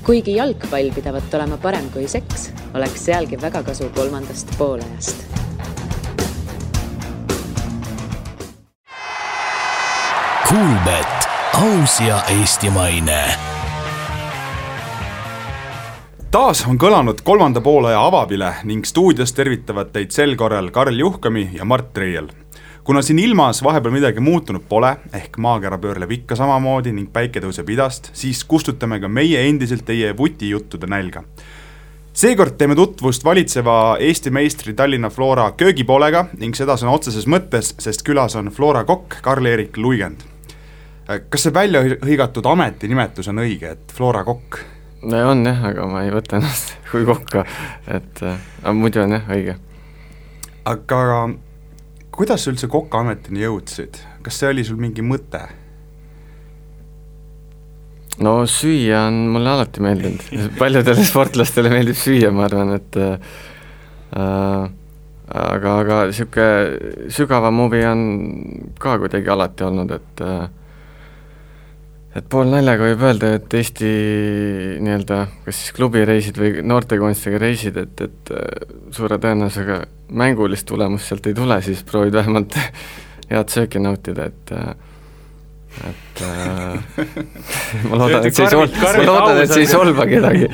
Kuigi jalgpall pidavat olema parem kui seks, oleks sealgi väga kasu 3. poolajast. Kuulbet, aus ja eestimaine. Taas on kõlanud 3. poolaja avabile ning stuudios tervitavad teid sel korral Karl Juhkami ja Mart Reiel. Kuna siin ilmas vahepeal midagi muutunud pole, ehk maakera pöörleb ikka samamoodi ning päike tõuseb idast, siis kustutame ka meie endiselt teie vutijuttude nälga. Seekord teeme tutvust valitseva Eesti meistri Tallinna Flora köögipoolega ning seda sõna otseses mõttes, sest külas on Flora kokk Karl-Erik Luigend. Kas see välja hõigatud ametinimetus on õige, et Flora kokk? On jah, aga ma ei võta ennast kui kokka, et muidu on jah õige. Aga kuidas üldse kokka ametini jõudsid? Kas see oli sul mingi mõte? No süüa on mulle alati meeldinud. Paljudele sportlastele meeldib süüa, ma arvan, et aga siuke sügavam huvi on ka kuidagi alati olnud, et pool naljaga võib öelda, et Eesti nii-öelda, kas siis klubireisid või noortekunstiga reisid, et suure tõenäosusega mängulist tulemust sealt ei tule, siis proovid vähemalt head sööki nautida, et ma loodan, et see ei solva kedagi,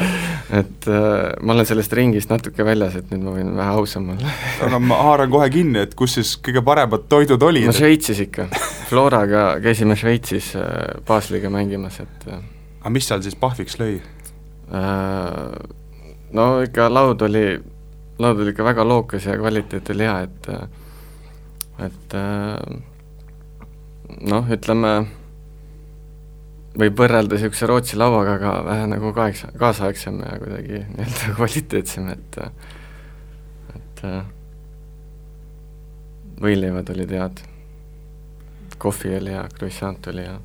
et ma olen sellest ringist natuke väljas, et nüüd ma võin vähe ausam olla. Aga ma haaran kohe kinni, et kus siis kõige paremad toidud olid? No Šveitsis ikka, Floraga käisime Šveitsis Basliga mängimas, et aga mis seal siis pahviks lõi? No ikka laud oli ikka väga lookas ja kvaliteet oli hea, et noh, ütleme, võib võrrelda siukse Rootsi lauaga, aga vähe nagu kaasaegsem ja kuidagi nii-öelda kvaliteetsem, et võileivad olid head, kohvi oli ja croissant oli ja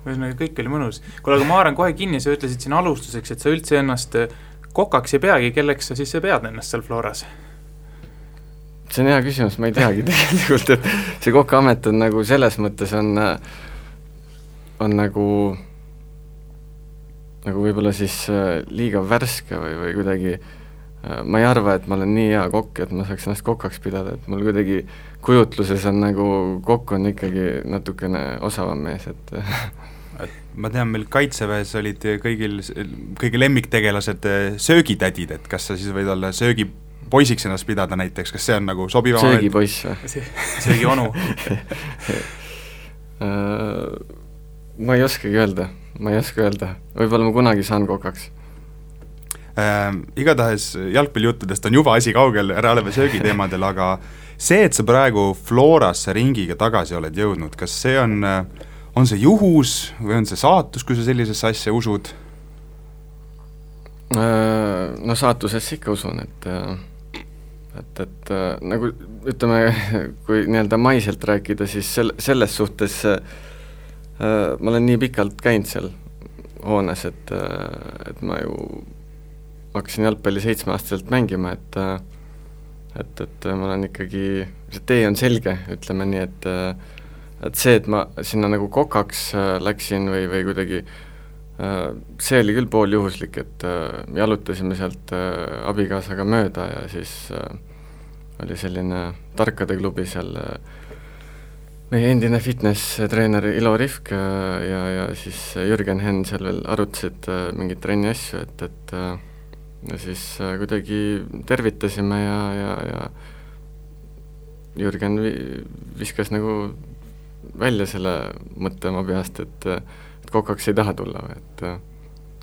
ühesõnaga kõik oli mõnus. Kuule, aga ma haaran kohe kinni, sa ütlesid siin alustuseks, et sa üldse ennast kokaks ei peagi, kelleks sa siis pead ennast seal Floras? See on hea küsimus, ma ei teagi tegelikult, et see kokaamet on nagu selles mõttes on nagu võib-olla siis liiga värske või kuidagi, ma ei arva, et ma olen nii hea kokk, et ma saaks ennast kokaks pidada, et mul kuidagi kujutluses on nagu kokk on ikkagi natukene osavam mees, et ma tean, meil Kaitseväes olid kõigi lemmiktegelased söögitädid, et kas sa siis võid olla söögipoisiks ennast pidada näiteks, kas see on nagu sobivam? Söögipoiss või? Söögionu? Ma ei oskagi öelda, võib-olla ma kunagi saan kokaks. Igatahes jalgpallijuttudest on juba asi kaugel, ära oleme söögiteemadel, aga see, et sa praegu Florasse ringiga tagasi oled jõudnud, kas see on see juhus või on see saatus, kui sa sellisesse asja usud? No saatusesse ikka usun, et nagu ütleme, kui nii-öelda maiselt rääkida, siis selles suhtes ma olen nii pikalt käinud seal hoones, et ma ju hakkasin jalgpalli 7-aastaselt mängima, et ma olen ikkagi, see tee on selge, ütleme nii, et see, et ma sinna nagu kokaks läksin või kuidagi, see oli küll pool juhuslik, et jalutasime sealt abikaasaga mööda ja siis oli selline tarkade klubi seal, meie endine fitness-treener Ilo Rivk ja siis Jürgen Henn seal veel arutasid mingit trenni asju, et ja siis kuidagi tervitasime ja Jürgen viskas nagu välja selle mõtte oma peast, et kokaks ei taha tulla, et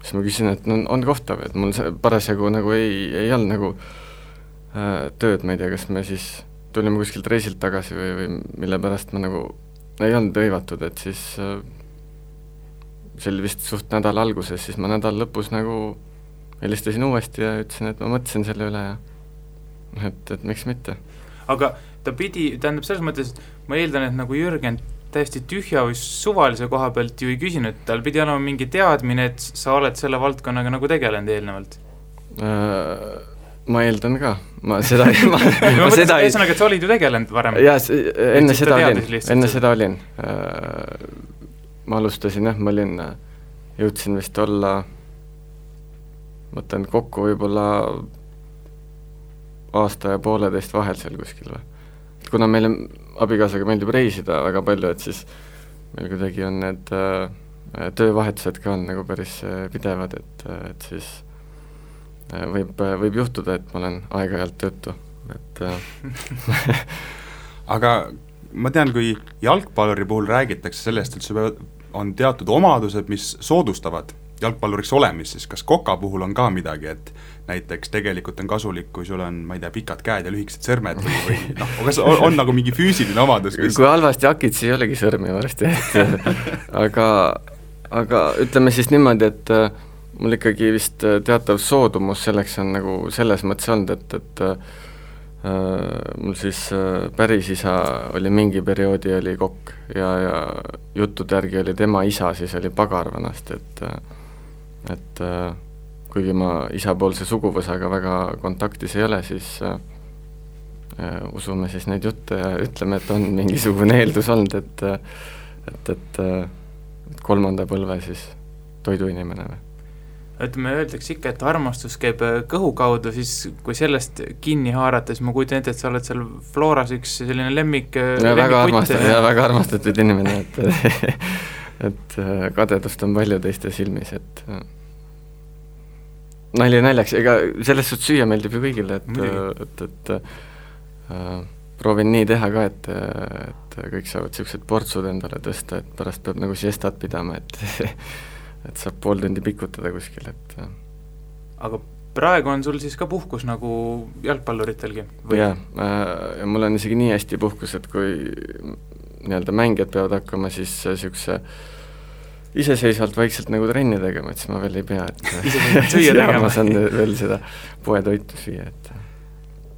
siis ma küsin, et on kohtav, et mul parasjagu nagu ei olnud nagu tööd, ma ei tea, kas me siis tulime kuskilt reisilt tagasi või mille pärast ma nagu ei olnud hõivatud, et siis see oli vist suht nädala alguses, siis ma nädala lõpus nagu helistasin uuesti ja ütlesin, et ma mõtlesin selle üle ja et miks mitte. Aga ta pidi, tähendab selles mõttes, ma eeldan, et nagu Jürgen täiesti tühja või suvalise koha pealt ju ei küsinud, tal pidi olema mingi teadmine, et sa oled selle valdkonnaga nagu tegelenud eelnevalt. Ma eeldan ka, ma seda ei ühesõnaga, et sa olid ju tegelenud varem. Jaa, enne seda olin. Ma alustasin, ma jõudsin vist olla mõtlen kokku võib-olla aasta ja pooleteist vahel seal kuskil või. Kuna meile abikaasaga meeldib reisida väga palju, et siis meil kuidagi on need töövahetused ka on nagu päris pidevad, et siis võib juhtuda, et ma olen aeg-ajalt töötu, et aga ma tean, kui jalgpalluri puhul räägitakse sellest, et sul on teatud omadused, mis soodustavad jalgpalluriks olemist, siis kas koka puhul on ka midagi, et näiteks tegelikult on kasulik, kui sul on, ma ei tea, pikad käed ja lühikesed sõrmed või kas on nagu mingi füüsiline omadus? Kui halvasti hakid, siis ei olegi sõrmi varsti, aga ütleme siis niimoodi, et mul ikkagi vist teatav soodumus selleks on nagu selles mõttes olnud, et mul siis päris isa oli mingi perioodi oli kokk ja juttude järgi oli tema isa, siis oli pagar vanasti, et kuigi ma isapoolse suguvõsaga väga kontaktis ei ole, siis usume siis neid jutte ja ütleme, et on mingisugune eeldus olnud, et kolmanda põlve siis toiduinimene või. Ütleme, öeldakse ikka, et armastus käib kõhu kaudu, siis kui sellest kinni haarata, siis ma kujutan ette, et sa oled seal Floras üks selline väga armastatud inimene, et kadedust on palju teiste silmis, et nali naljaks, ega selles suhtes süüa meeldib ju kõigile, et proovin nii teha ka, et kõik saavad siuksed portsud endale tõsta, et pärast peab nagu siestat pidama, et saab pool tundi pikutada kuskil, et aga praegu on sul siis ka puhkus nagu jalgpalluritelgi? Jaa, ja mul on isegi nii hästi puhkus, et kui nii-öelda mängijad peavad hakkama siis siukse iseseisvalt vaikselt nagu trenni tegema, et siis ma veel ei pea, et süüa tegema. Ma saan veel seda poetoitu süüa, et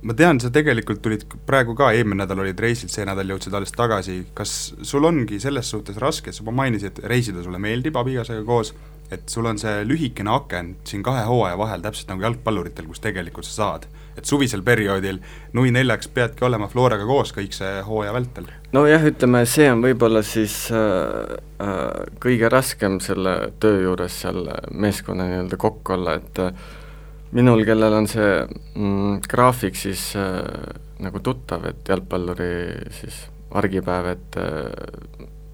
ma tean, sa tegelikult tulid praegu ka, eelmine nädal olid reisil, see nädal jõudsid alles tagasi, kas sul ongi selles suhtes raske, et sa mainisid, et reisida sulle meeldib abikaasaga koos, et sul on see lühikene aken siin 2 hooaja vahel, täpselt nagu jalgpalluritel, kus tegelikult sa saad, et suvisel perioodil nui 4 peadki olema Floraga koos kõik see hooaja vältel? No jah, ütleme, see on võib-olla siis kõige raskem selle töö juures seal meeskonna nii-öelda kokk olla, et minul, kellel on see graafik siis nagu tuttav, et jalgpalluri siis argipäev, et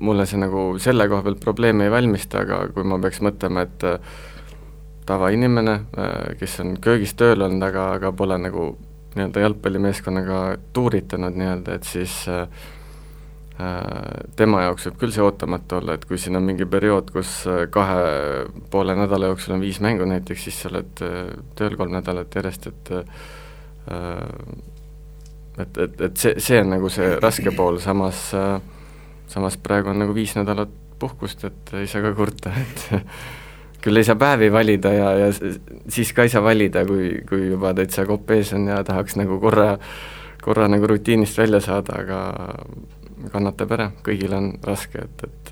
mulle see nagu selle koha pealt probleemi ei valmista, aga kui ma peaks mõtlema, et tavainimene, kes on köögis tööl olnud, aga pole nagu nii-öelda jalgpallimeeskonnaga tuuritanud nii-öelda, et siis tema jaoks võib küll see ootamatu olla, et kui siin on mingi periood, kus 2,5 nädala jooksul on 5 mängu näiteks, siis sa oled tööl 3 nädalat järjest, et see on nagu see raske pool, samas praegu on nagu 5 nädalat puhkust, et ei saa ka kurta, et küll ei saa päevi valida ja siis ka ei saa valida, kui juba täitsa kopp ees on ja tahaks nagu korra nagu rutiinist välja saada, aga kannatab ära, kõigil on raske, et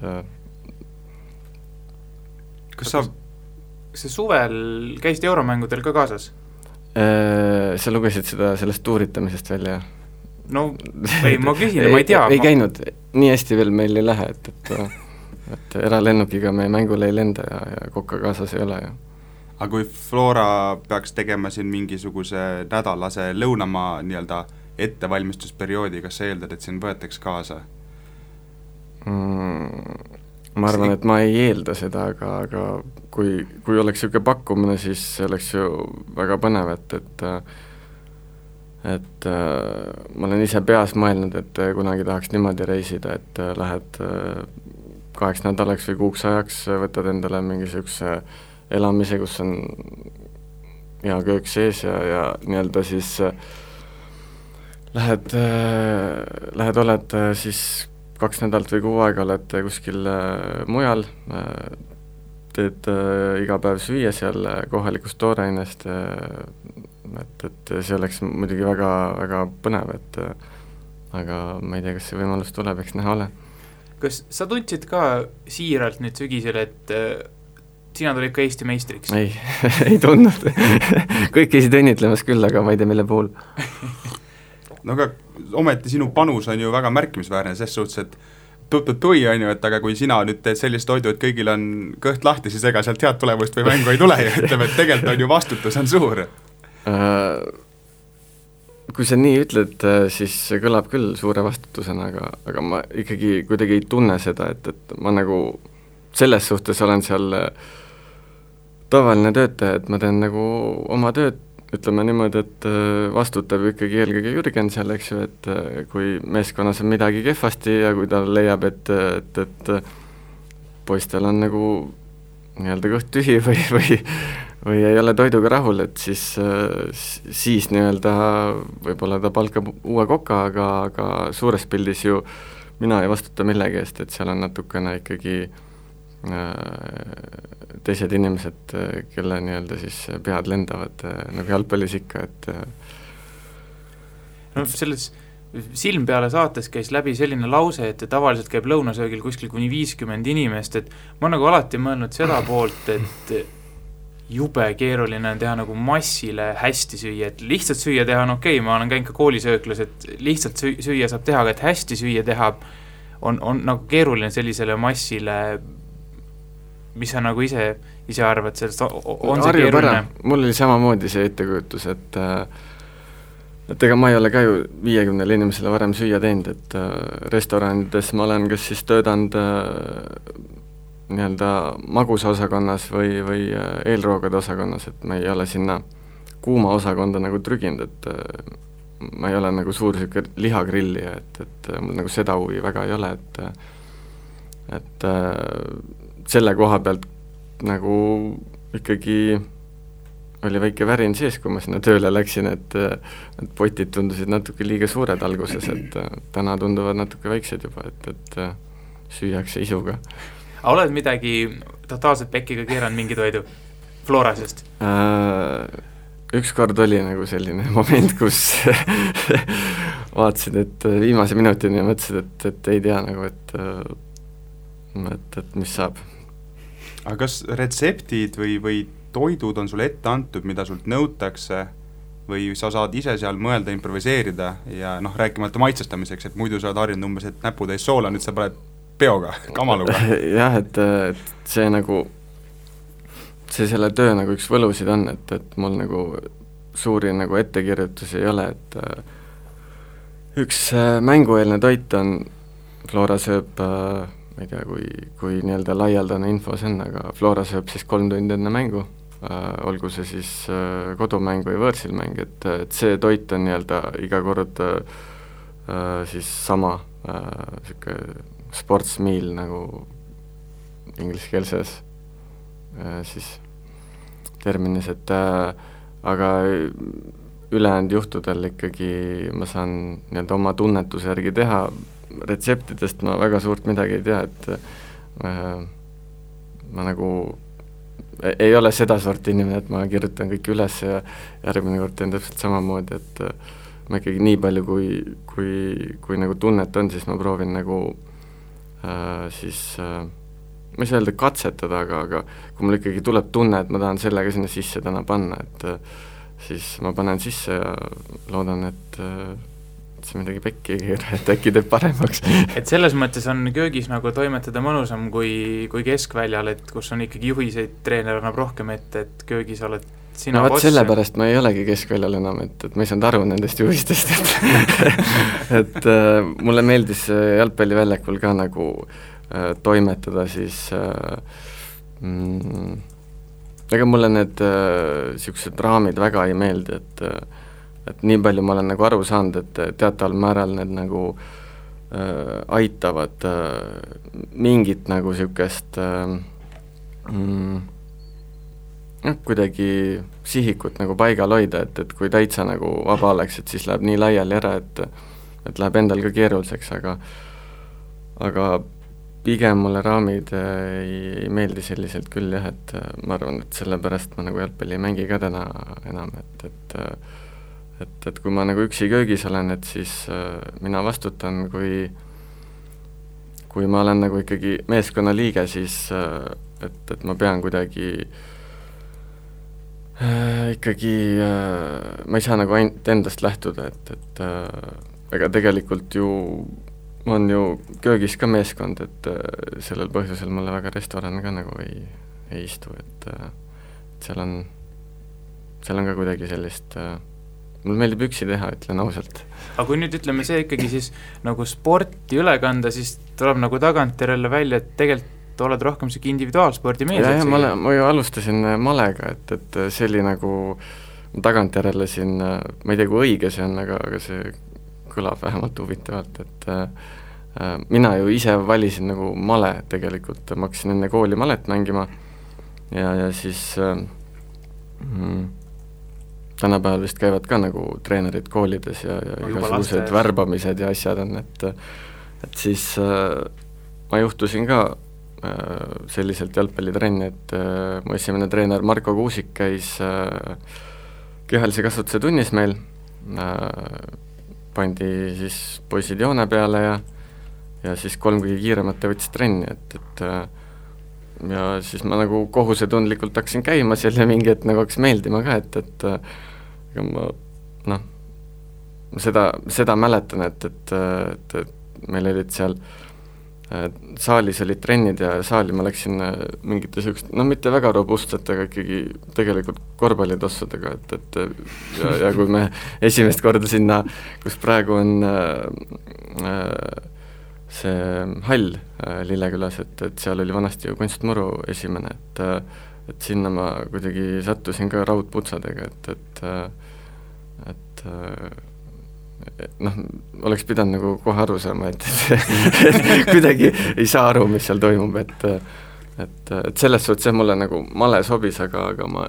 kas sa suvel käisid euromängudel ka kaasas? Sa lugesid sellest tuuritamisest välja? No ei, ma küsin, ma ei tea. Ei käinud, nii hästi veel meil ei lähe, et eralennukiga me mängule ei lenda ja kokka kaasas ei ole. Ja. Aga kui Flora peaks tegema siin mingisuguse nädalase lõunamaa nii-öelda ettevalmistusperioodi, kas sa eeldad, et siin võetaks kaasa? Ma arvan, et ma ei eelda seda, aga kui oleks siuke pakkumine, siis see oleks ju väga põnev, et ma olen ise peas mõelnud, et kunagi tahaks niimoodi reisida, et lähed 8 nädalaks või 6 ajaks, võtad endale mingi siukse elamise, kus on hea köök sees ja nii-öelda siis lähed oled siis 2 nädalat või 6 aega oled kuskil mujal, teed iga päev süüa seal kohalikust toorainest, et see oleks muidugi väga, väga põnev, aga ma ei tea, kas see võimalus tuleb, eks näha ole. Kas sa tundsid ka siiralt nüüd sügisel, et sina tulid ka Eesti meistriks? Ei, ei tundnud. Kõik käisid õnnitlemas küll, aga ma ei tea, mille puhul. No aga ometi sinu panus on ju väga märkimisväärne, selles suhtes, et tui, on ju, et aga kui sina nüüd teed sellist toidu, et kõigil on kõht lahti, siis ega sealt head tulemust või mängu ei tule ja ütleme, et tegelikult on ju vastutus on suur. Kui sa nii ütled, siis see kõlab küll suure vastutusena, aga ma ikkagi kuidagi ei tunne seda, et ma nagu selles suhtes olen seal tavaline töötaja, et ma teen nagu oma tööd, ütleme niimoodi, et vastutab ikkagi eelkõige Jürgen seal, eks ju, et kui meeskonnas on midagi kehvasti ja kui ta leiab, et poistel on nagu nii-öelda kõht tühi või ei ole toiduga rahul, et siis nii-öelda võib-olla ta palkab uue koka, aga suures pildis ju mina ei vastuta millegi eest, et seal on natukene ikkagi teised inimesed, kelle nii-öelda siis pead lendavad nagu jalgpallis ikka, et no selles Silm peale saates käis läbi selline lause, et tavaliselt käib lõunasöögil kuskil kuni 50 inimest, et ma nagu alati mõelnud seda poolt, et jube keeruline on teha nagu massile hästi süüa, et lihtsalt süüa teha on okei, ma olen käinud ka koolisööklas, et lihtsalt süüa saab teha, aga et hästi süüa teha on nagu keeruline sellisele massile, mis sa nagu ise arvad sellest, on see keeruline? Mul oli samamoodi see ettekujutus, et ega ma ei ole ka ju 50 inimesele varem süüa teinud, et restoranides ma olen kas siis töötanud nii-öelda magusa osakonnas või eelroogade osakonnas, et ma ei ole sinna kuuma osakonda nagu trüginud, et ma ei ole nagu suur siuke lihagrillija, et mul nagu seda huvi väga ei ole, et selle koha pealt nagu ikkagi oli väike värin sees, kui ma sinna tööle läksin, et potid tundusid natuke liiga suured alguses, et täna tunduvad natuke väiksed juba, et süüakse isuga. Oled midagi totaalselt pekiga keeranud mingi toidu Florasest? Ükskord oli nagu selline moment, kus vaatasin, et viimase minutini ja mõtlesin, et ei tea nagu, et mis saab. Aga kas retseptid või toidud on sulle ette antud, mida sult nõutakse või sa saad ise seal mõelda, improviseerida ja noh, rääkimata maitsestamiseks, et muidu sa oled harjunud umbes, et näputäis soola, nüüd sa paned peoga, kamaluga. Jah, et see nagu, see selle töö nagu üks võlusid on, et mul nagu suuri nagu ettekirjutusi ei ole, et üks mängueelne toit on, Flora sööb ma ei tea, kui nii-öelda laialdane info see on, aga Flora sööb siis 3 tundi enne mängu, olgu see siis kodumäng või võõrsil mäng, et see toit on nii-öelda iga kord siis sama siuke sports meal nagu ingliskeelses siis terminis, et aga ülejäänud juhtudel ikkagi ma saan nii-öelda oma tunnetuse järgi teha, retseptidest ma väga suurt midagi ei tea, et ma nagu ei ole seda sorti inimene, et ma kirjutan kõik üles ja järgmine kord teen täpselt samamoodi, et ma ikkagi nii palju, kui nagu tunnet on, siis ma proovin nagu siis ma ei saa öelda katsetada, aga kui mul ikkagi tuleb tunne, et ma tahan sellega sinna sisse täna panna, et siis ma panen sisse ja loodan, et see midagi pekki ei keera, et äkki teeb paremaks. Et selles mõttes on köögis nagu toimetada mõnusam kui keskväljal, et kus on ikkagi juhiseid, treener annab rohkem ette, et köögis oled sina boss. Sellepärast ma ei olegi keskväljal enam, et ma ei saanud aru nendest juhistest, et mulle meeldis jalgpalliväljakul ka nagu toimetada siis ega mulle need siuksed raamid väga ei meeldi, et nii palju ma olen nagu aru saanud, et teataval määral need nagu aitavad mingit nagu siukest kuidagi sihikut nagu paigal hoida, et kui täitsa nagu vaba oleks, et siis läheb nii laiali ära, et läheb endal ka keeruliseks, aga pigem mulle raamid ei meeldi selliselt küll jah, et ma arvan, et sellepärast ma nagu jalgpalli ei mängi ka täna enam, et kui ma nagu üksi köögis olen, et siis mina vastutan, kui ma olen nagu ikkagi meeskonna liige, siis et ma pean kuidagi ikkagi ma ei saa nagu ainult endast lähtuda, et ega tegelikult ju on ju köögis ka meeskond, et sellel põhjusel mulle väga restoran ka nagu ei istu, et seal on ka kuidagi sellist, mul meeldib üksi teha, ütlen ausalt. Aga kui nüüd ütleme see ikkagi siis nagu sporti üle kanda, siis tuleb nagu tagantjärele välja, et tegelikult oled rohkem siuke individuaalspordi mees. Ja, ma ju alustasin malega, et see oli nagu tagantjärele siin, ma ei tea, kui õige see on, aga see kõlab vähemalt huvitavalt, et mina ju ise valisin nagu male tegelikult, ma hakkasin enne kooli malet mängima ja siis tänapäeval vist käivad ka nagu treenerid koolides ja igasugused värbamised ja asjad on, et siis ma juhtusin ka selliselt jalgpallitrenni, et mu esimene treener Marko Kuusik käis kehalise kasvatuse tunnis meil, pandi siis poisid joone peale ja siis 3 kõige kiiremat võttis trenni, et ja siis ma nagu kohusetundlikult hakkasin käima seal ja mingi, et nagu hakkas meeldima ka, et ma seda mäletan, et meil olid seal saalis olid trennid ja saali ma läksin mingite sellist, mitte väga robustsete, aga ikkagi tegelikult korvpallitossudega, et ja kui me esimest korda sinna, kus praegu on see hall Lillekülas, et seal oli vanasti ju kunstmuru esimene, et sinna ma kuidagi sattusin ka raudputsadega, et oleks pidanud nagu kohe aru saama, et kuidagi ei saa aru, mis seal toimub, et selles suhtes mulle nagu male sobis, aga ma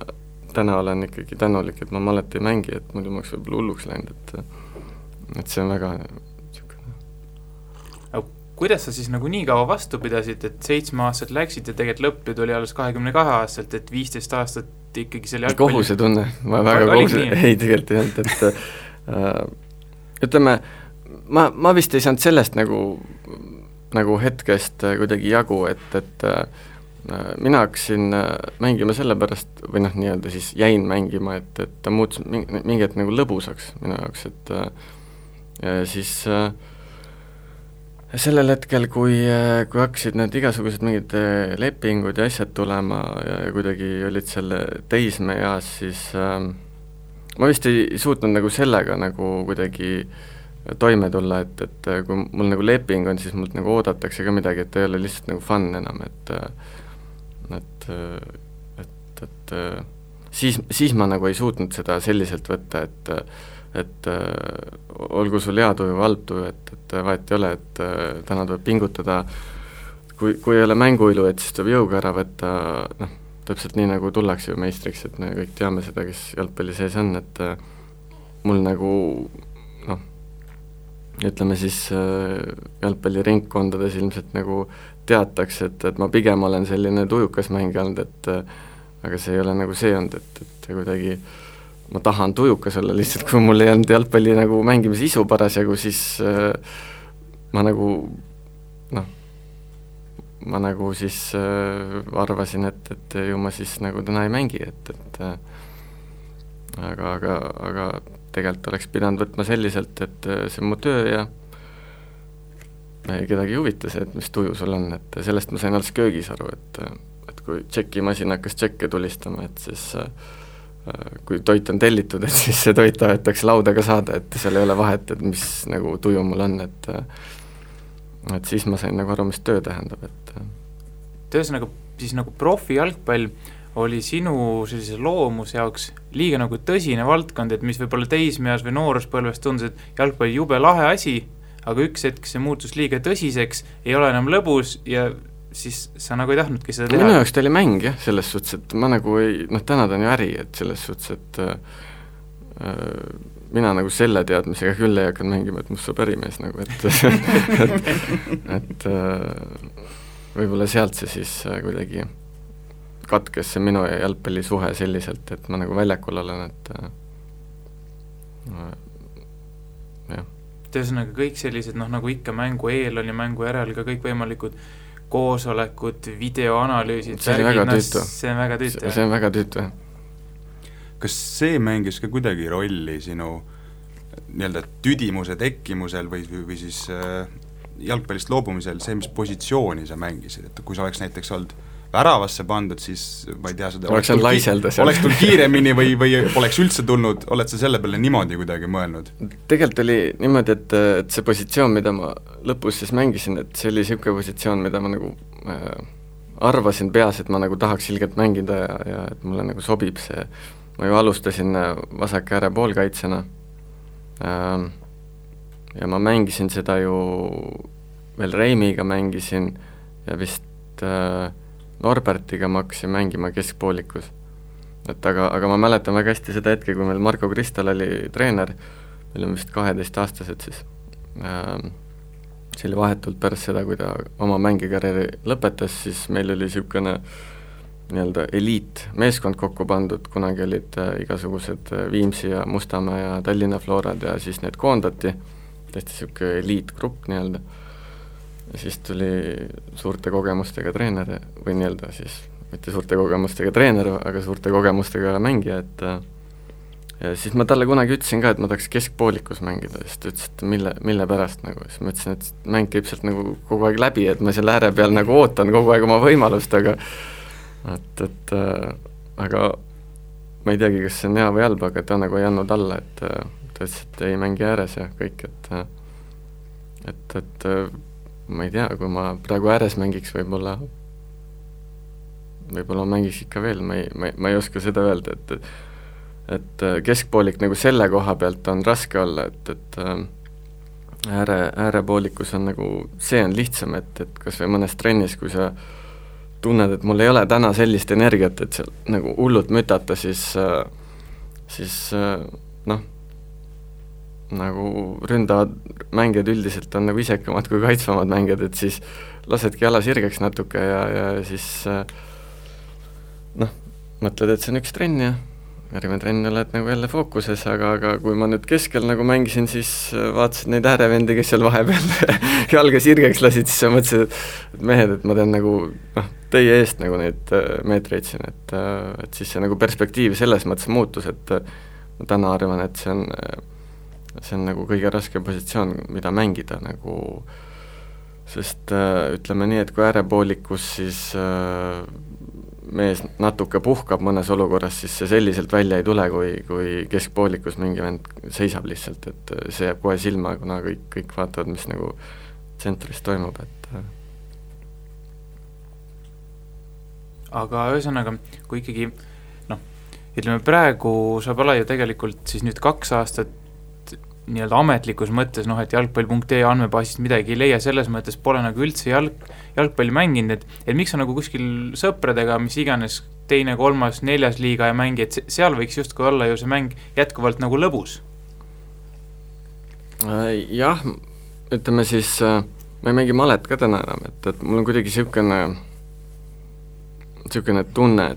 täna olen ikkagi tänulik, et ma malet ei mängi, et muidu ma oleks võib-olla hulluks läinud, et see on väga kuidas sa siis nagu nii kaua vastu pidasid, et 7-aastaselt läksid ja tegelikult lõpp tuli alles 22-aastaselt, et 15 aastat ikkagi selle jalgpalli... Kohusetunne, ma väga ei tegelikult ei olnud, et ütleme, ma vist ei saanud sellest nagu hetkest kuidagi jagu, et mina hakkasin mängima sellepärast, või nii-öelda siis jäin mängima, et ta muutus mingi hetk nagu lõbusaks minu jaoks, et siis sellel hetkel, kui hakkasid need igasugused mingid lepingud ja asjad tulema ja kuidagi olid selle teismeeas, siis ma vist ei suutnud nagu sellega nagu kuidagi toime tulla, et kui mul nagu leping on, siis mult nagu oodatakse ka midagi, et ei ole lihtsalt nagu fun enam, et siis ma nagu ei suutnud seda selliselt võtta, et olgu sul hea tuju või halb tuju, et vahet ei ole, et täna tuleb pingutada, kui ei ole mänguilu, et siis tuleb jõuga ära võtta, täpselt nii nagu tullakse ju meistriks, et me kõik teame seda, kes jalgpalli sees on, et mul nagu ütleme siis jalgpalliringkondades ilmselt nagu teatakse, et ma pigem olen selline tujukas mängija olnud, aga see ei ole nagu see olnud, et kuidagi ma tahan tujukas olla, lihtsalt kui mul ei olnud jalgpalli nagu mängimise isu parasjagu, siis ma nagu siis arvasin, et ju ma siis nagu täna ei mängi, aga tegelikult oleks pidanud võtma selliselt, et see on mu töö ja kedagi ei huvita see, et mis tuju sul on, et sellest ma sain alles köögis aru, et kui tšekimasin hakkas tšekke tulistama, et siis kui toit on tellitud, et siis see toit tahetakse laudaga saada, et seal ei ole vahet, et mis nagu tuju mul on, et siis ma sain nagu aru, mis töö tähendab, et ühesõnaga siis nagu profi jalgpall oli sinu sellise loomuse jaoks liiga nagu tõsine valdkond, et mis võib-olla teismeas või nooruspõlves tundus, et jalgpalli jube lahe asi, aga üks hetk see muutus liiga tõsiseks, ei ole enam lõbus ja siis sa nagu ei tahtnudki seda teha. Minu jaoks ta oli mäng jah, selles suhtes, et ma nagu ei, täna ta on ju äri, et selles suhtes, et mina nagu selle teadmisega küll ei hakanud mängima, et must saab ärimees nagu, et võib-olla sealt see siis kuidagi katkes see minu ja jalgpalli suhe selliselt, et ma nagu väljakul olen, et jah. Ühesõnaga kõik sellised, nagu ikka mängu eel on ja mängu järel ka kõik võimalikud koosolekud, videoanalüüsid, see on väga tüütu. See on väga tüütu, Kas see mängis ka kuidagi rolli sinu nii-öelda tüdimuse tekkimusel või siis jalgpallist loobumisel see, mis positsiooni sa mängisid, et kui sa oleks näiteks olnud väravasse pandud, siis ma ei tea, seda oleks tulnud kiiremini või poleks üldse tulnud, oled sa selle peale niimoodi kuidagi mõelnud? Tegelikult oli niimoodi, et see positsioon, mida ma lõpus siis mängisin, et see oli niisugune positsioon, mida ma nagu arvasin peas, et ma nagu tahaks ilgelt mängida ja et mulle nagu sobib see. Ma ju alustasin vasak ääre poolkaitsena ja ma mängisin seda ju veel Reimiga mängisin ja vist Norbertiga ma hakkasin mängima keskpoolikus. Et aga ma mäletan väga hästi seda hetke, kui meil Marko Kristal oli treener, meil on vist 12-aastased siis. See oli vahetult pärast seda, kui ta oma mängikarjääri lõpetas, siis meil oli niisugune nii-öelda eliit meeskond kokku pandud, kunagi olid igasugused Viimsi ja Mustamäe ja Tallinna Florad ja siis need koondati, tõesti niisugune eliitgrupp nii-öelda. Ja siis tuli suurte kogemustega treener või nii-öelda siis, mitte suurte kogemustega treener, aga suurte kogemustega mängija, et ja siis ma talle kunagi ütlesin ka, et ma tahaks keskpoolikus mängida, siis ta ütles, et mille pärast nagu, siis ma ütlesin, et mäng käib sealt nagu kogu aeg läbi, et ma selle ääre peal nagu ootan kogu aeg oma võimalust, aga aga ma ei teagi, kas see on hea või halb, aga ta nagu ei andnud alla, et ta ütles, et ei mängi ääres ja kõik, et ma ei tea, kui ma praegu ääres mängiks, võib-olla mängiks ikka veel, ma ei oska seda öelda, et keskpoolik nagu selle koha pealt on raske olla, et äärepoolikus on nagu, see on lihtsam, et kas või mõnes trennis, kui sa tunned, et mul ei ole täna sellist energiat, et seal nagu hullult mütata, siis nagu ründavad mängijad üldiselt on nagu isekamad kui kaitsvamad mängijad, et siis lasedki jala sirgeks natuke ja siis mõtled, et see on üks trenn ja järgmine trenn oled nagu jälle fookuses, aga kui ma nüüd keskel nagu mängisin, siis vaatasid neid äärevendi, kes seal vahepeal jalga sirgeks lasid, siis sa mõtlesid, et mehed, et ma teen nagu teie eest nagu neid meetreid siin, et siis see nagu perspektiiv selles mõttes muutus, et ma täna arvan, et see on nagu kõige raskem positsioon, mida mängida nagu, sest ütleme nii, et kui äärepoolikus siis mees natuke puhkab mõnes olukorras, siis see selliselt välja ei tule, kui keskpoolikus mingi vend seisab lihtsalt, et see jääb kohe silma, kuna kõik vaatavad, mis nagu tsentris toimub, et aga ühesõnaga, kui ikkagi ütleme praegu sa pole ju tegelikult siis nüüd 2 aastat nii-öelda ametlikus mõttes, et jalgpall.ee andmebaasist midagi ei leia, selles mõttes pole nagu üldse jalgpalli mänginud, et miks sa nagu kuskil sõpradega, mis iganes 2., 3., 4. liiga ja mängi, et seal võiks justkui olla ju see mäng jätkuvalt nagu lõbus? Jah, ütleme siis, ma ei mängi malet ka täna enam, et mul on kuidagi niisugune tunne,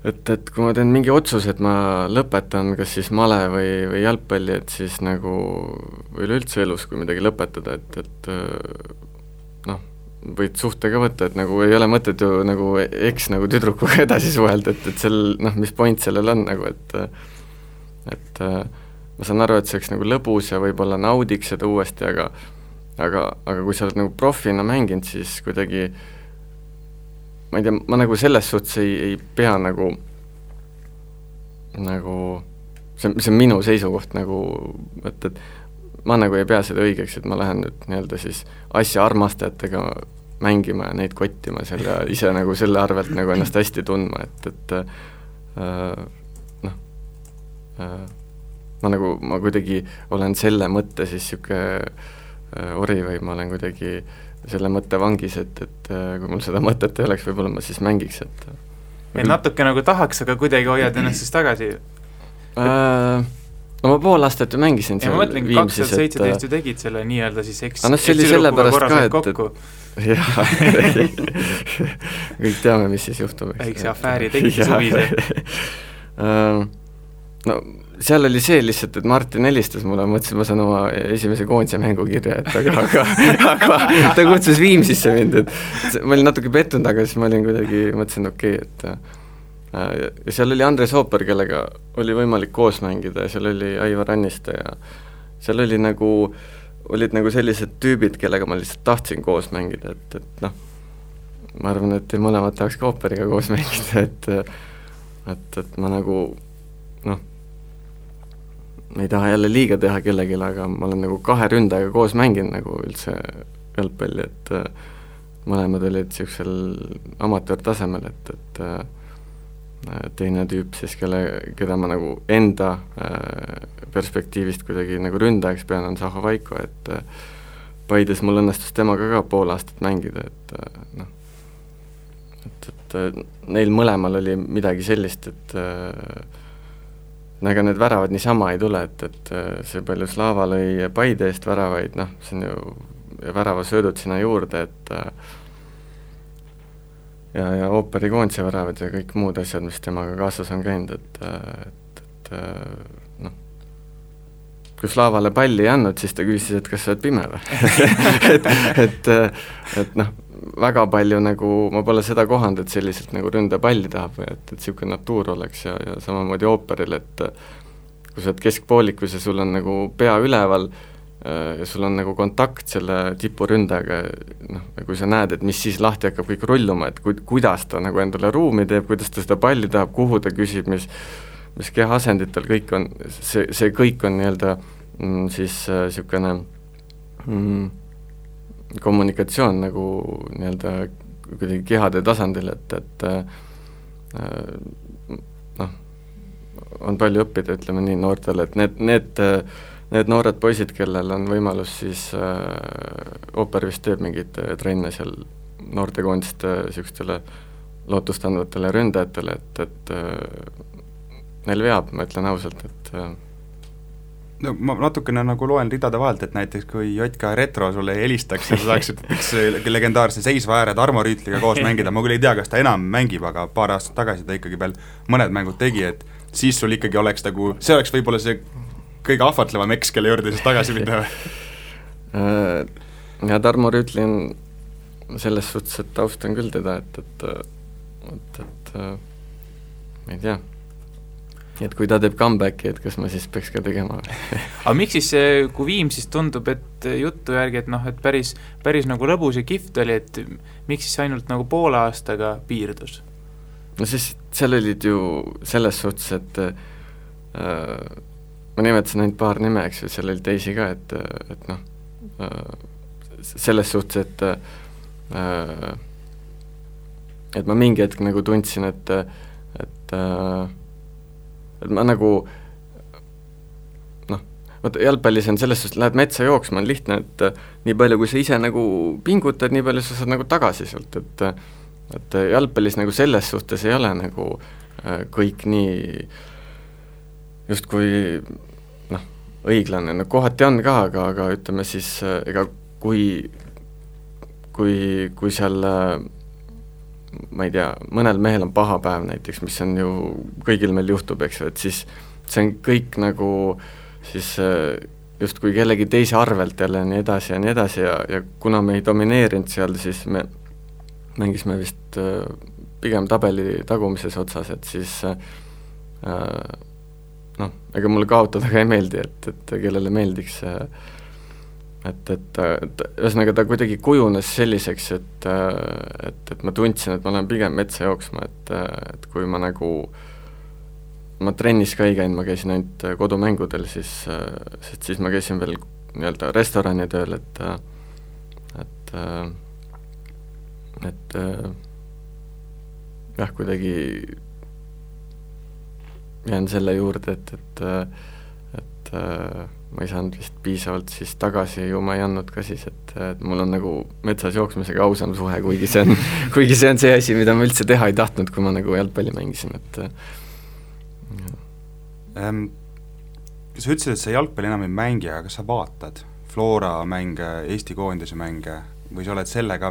et kui ma teen mingi otsus, et ma lõpetan kas siis male või jalgpalli, et siis nagu üleüldse elus, kui midagi lõpetada, et võid suhte ka võtta, et nagu ei ole mõtet ju nagu nagu tüdrukuga edasi suhelda, et sel, mis point sellel on nagu, et ma saan aru, et see oleks nagu lõbus ja võib-olla naudiks seda uuesti, aga kui sa oled nagu profina mänginud, siis kuidagi ma ei tea, ma nagu selles suhtes ei pea nagu see on minu seisukoht nagu, et ma nagu ei pea seda õigeks, et ma lähen nüüd nii-öelda siis asja armastajatega mängima ja neid kottima seal ja ise nagu selle arvelt nagu ennast hästi tundma, ma kuidagi olen selle mõtte siis siuke ori või ma olen kuidagi selle mõtte vangis, et kui mul seda mõtet ei oleks, võib-olla ma siis mängiks, et natuke nagu tahaks, aga kuidagi hoiad ennast siis tagasi? No ma pool aastat ju mängisin ja ma mõtlen, 2017 ju tegid selle nii-öelda siis see oli selle pärast ka, et jah, kõik teame, mis siis juhtub. Väikse afääri tegid suvise. No seal oli see lihtsalt, et Martin helistas mulle, mõtlesin, ma saan oma esimese koondise mängu kirja, et aga ta kutsus Viimsisse mind, et ma olin natuke pettunud, aga siis ma olin kuidagi, mõtlesin okei, et ja seal oli Andres Hooper, kellega oli võimalik koos mängida ja seal oli Aivar Anniste ja seal oli nagu olid nagu sellised tüübid, kellega ma lihtsalt tahtsin koos mängida, et noh, ma arvan, et mõlemad tahaks ka ooperiga koos mängida, et ma nagu noh, ei taha jälle liiga teha kellelegi, aga ma olen nagu 2 ründajaga koos mänginud nagu üldse jalgpalli, et mõlemad olid niisugusel amatöörtasemel, et teine tüüp siis, keda ma nagu enda perspektiivist kuidagi nagu ründajaks pean, on Zaho Vaiko, et Paides mul õnnestus temaga ka pool aastat mängida, et noh, et neil mõlemal oli midagi sellist, et ega need väravad niisama ei tule, et see palju Slava lõi Paide eest väravaid, noh, see on ju väravasöödud sinna juurde, et ja ooperikoondise väravad ja kõik muud asjad, mis temaga kaasas on käinud, et noh, kui Slavale palli ei andnud, siis ta küsis, et kas sa oled pime või? et noh, väga palju nagu, ma pole seda kohanud, et selliselt nagu ründa palli tahab või et niisugune natuur oleks ja samamoodi ooperil, et kui sa oled keskpoolikus ja sul on nagu pea üleval ja sul on nagu kontakt selle tipuründajaga, noh, ja kui sa näed, et mis siis lahti hakkab kõik rulluma, et kuidas ta nagu endale ruumi teeb, kuidas ta seda palli tahab, kuhu ta küsib, mis kehaasenditel kõik on, see kõik on nii-öelda siis niisugune kommunikatsioon nagu nii-öelda kuidagi kehade tasandil, et noh, on palju õppida, ütleme nii, noortele, et need noored poisid, kellel on võimalus siis ooper vist teeb mingid trenne seal noortekoondiste niisugustele lootustandvatele ründajatele, et neil veab, ma ütlen ausalt, et no ma natukene nagu loen ridade vahelt, et näiteks kui Jotka Retro sulle helistaks ja sa saaksid üks legendaarse seisva ääre Tarmo Rüütliga koos mängida, ma küll ei tea, kas ta enam mängib, aga paar aastat tagasi ta ikkagi veel mõned mängud tegi, et siis sul ikkagi oleks nagu, see oleks võib-olla see kõige ahvatlevam eks, kelle juurde siis tagasi minna või? Ja Tarmo Rüütli on selles suhtes, et austan küll teda, et ma ei tea, et kui ta teeb comebacki, et kas ma siis peaks ka tegema aga miks siis, kui Viim siis tundub, et juttu järgi, et noh, et päris nagu lõbus ja kihvt oli, et miks siis ainult nagu poole aastaga piirdus? No siis seal olid ju selles suhtes, et ma nimetasin ainult paar nime, eks ju, seal oli teisi ka, et noh, selles suhtes, et ma mingi hetk nagu tundsin, et ma nagu noh, vaata jalgpallis on selles suhtes, lähed metsa jooksma, on lihtne, et nii palju, kui sa ise nagu pingutad, nii palju sa saad nagu tagasi sealt, et jalgpallis nagu selles suhtes ei ole nagu kõik nii justkui noh, õiglane, no kohati on ka, aga ütleme siis, ega kui seal ma ei tea, mõnel mehel on paha päev näiteks, mis on ju, kõigil meil juhtub, eks ju, et siis see on kõik nagu siis justkui kellegi teise arvelt jälle nii edasi ja kuna me ei domineerinud seal, siis me mängisime vist pigem tabeli tagumises otsas, et siis noh, ega mulle kaotada ka ei meeldi, et kellele meeldiks et ühesõnaga ta kuidagi kujunes selliseks, et ma tundsin, et ma olen pigem metsa jooksma, et kui ma nagu, ma trennis ka ei käinud, ma käisin ainult kodumängudel, siis ma käisin veel nii-öelda restorani tööl, et jah, kuidagi jään selle juurde, et ma ei saanud vist piisavalt siis tagasi, ju ma ei andnud ka siis, et mul on nagu metsas jooksmisega ausam suhe, kuigi see on see asi, mida ma üldse teha ei tahtnud, kui ma nagu jalgpalli mängisin, et sa ütlesid, et sa jalgpalli enam ei mängi, aga kas sa vaatad Flora mänge, Eesti koondise mänge või sa oled selle ka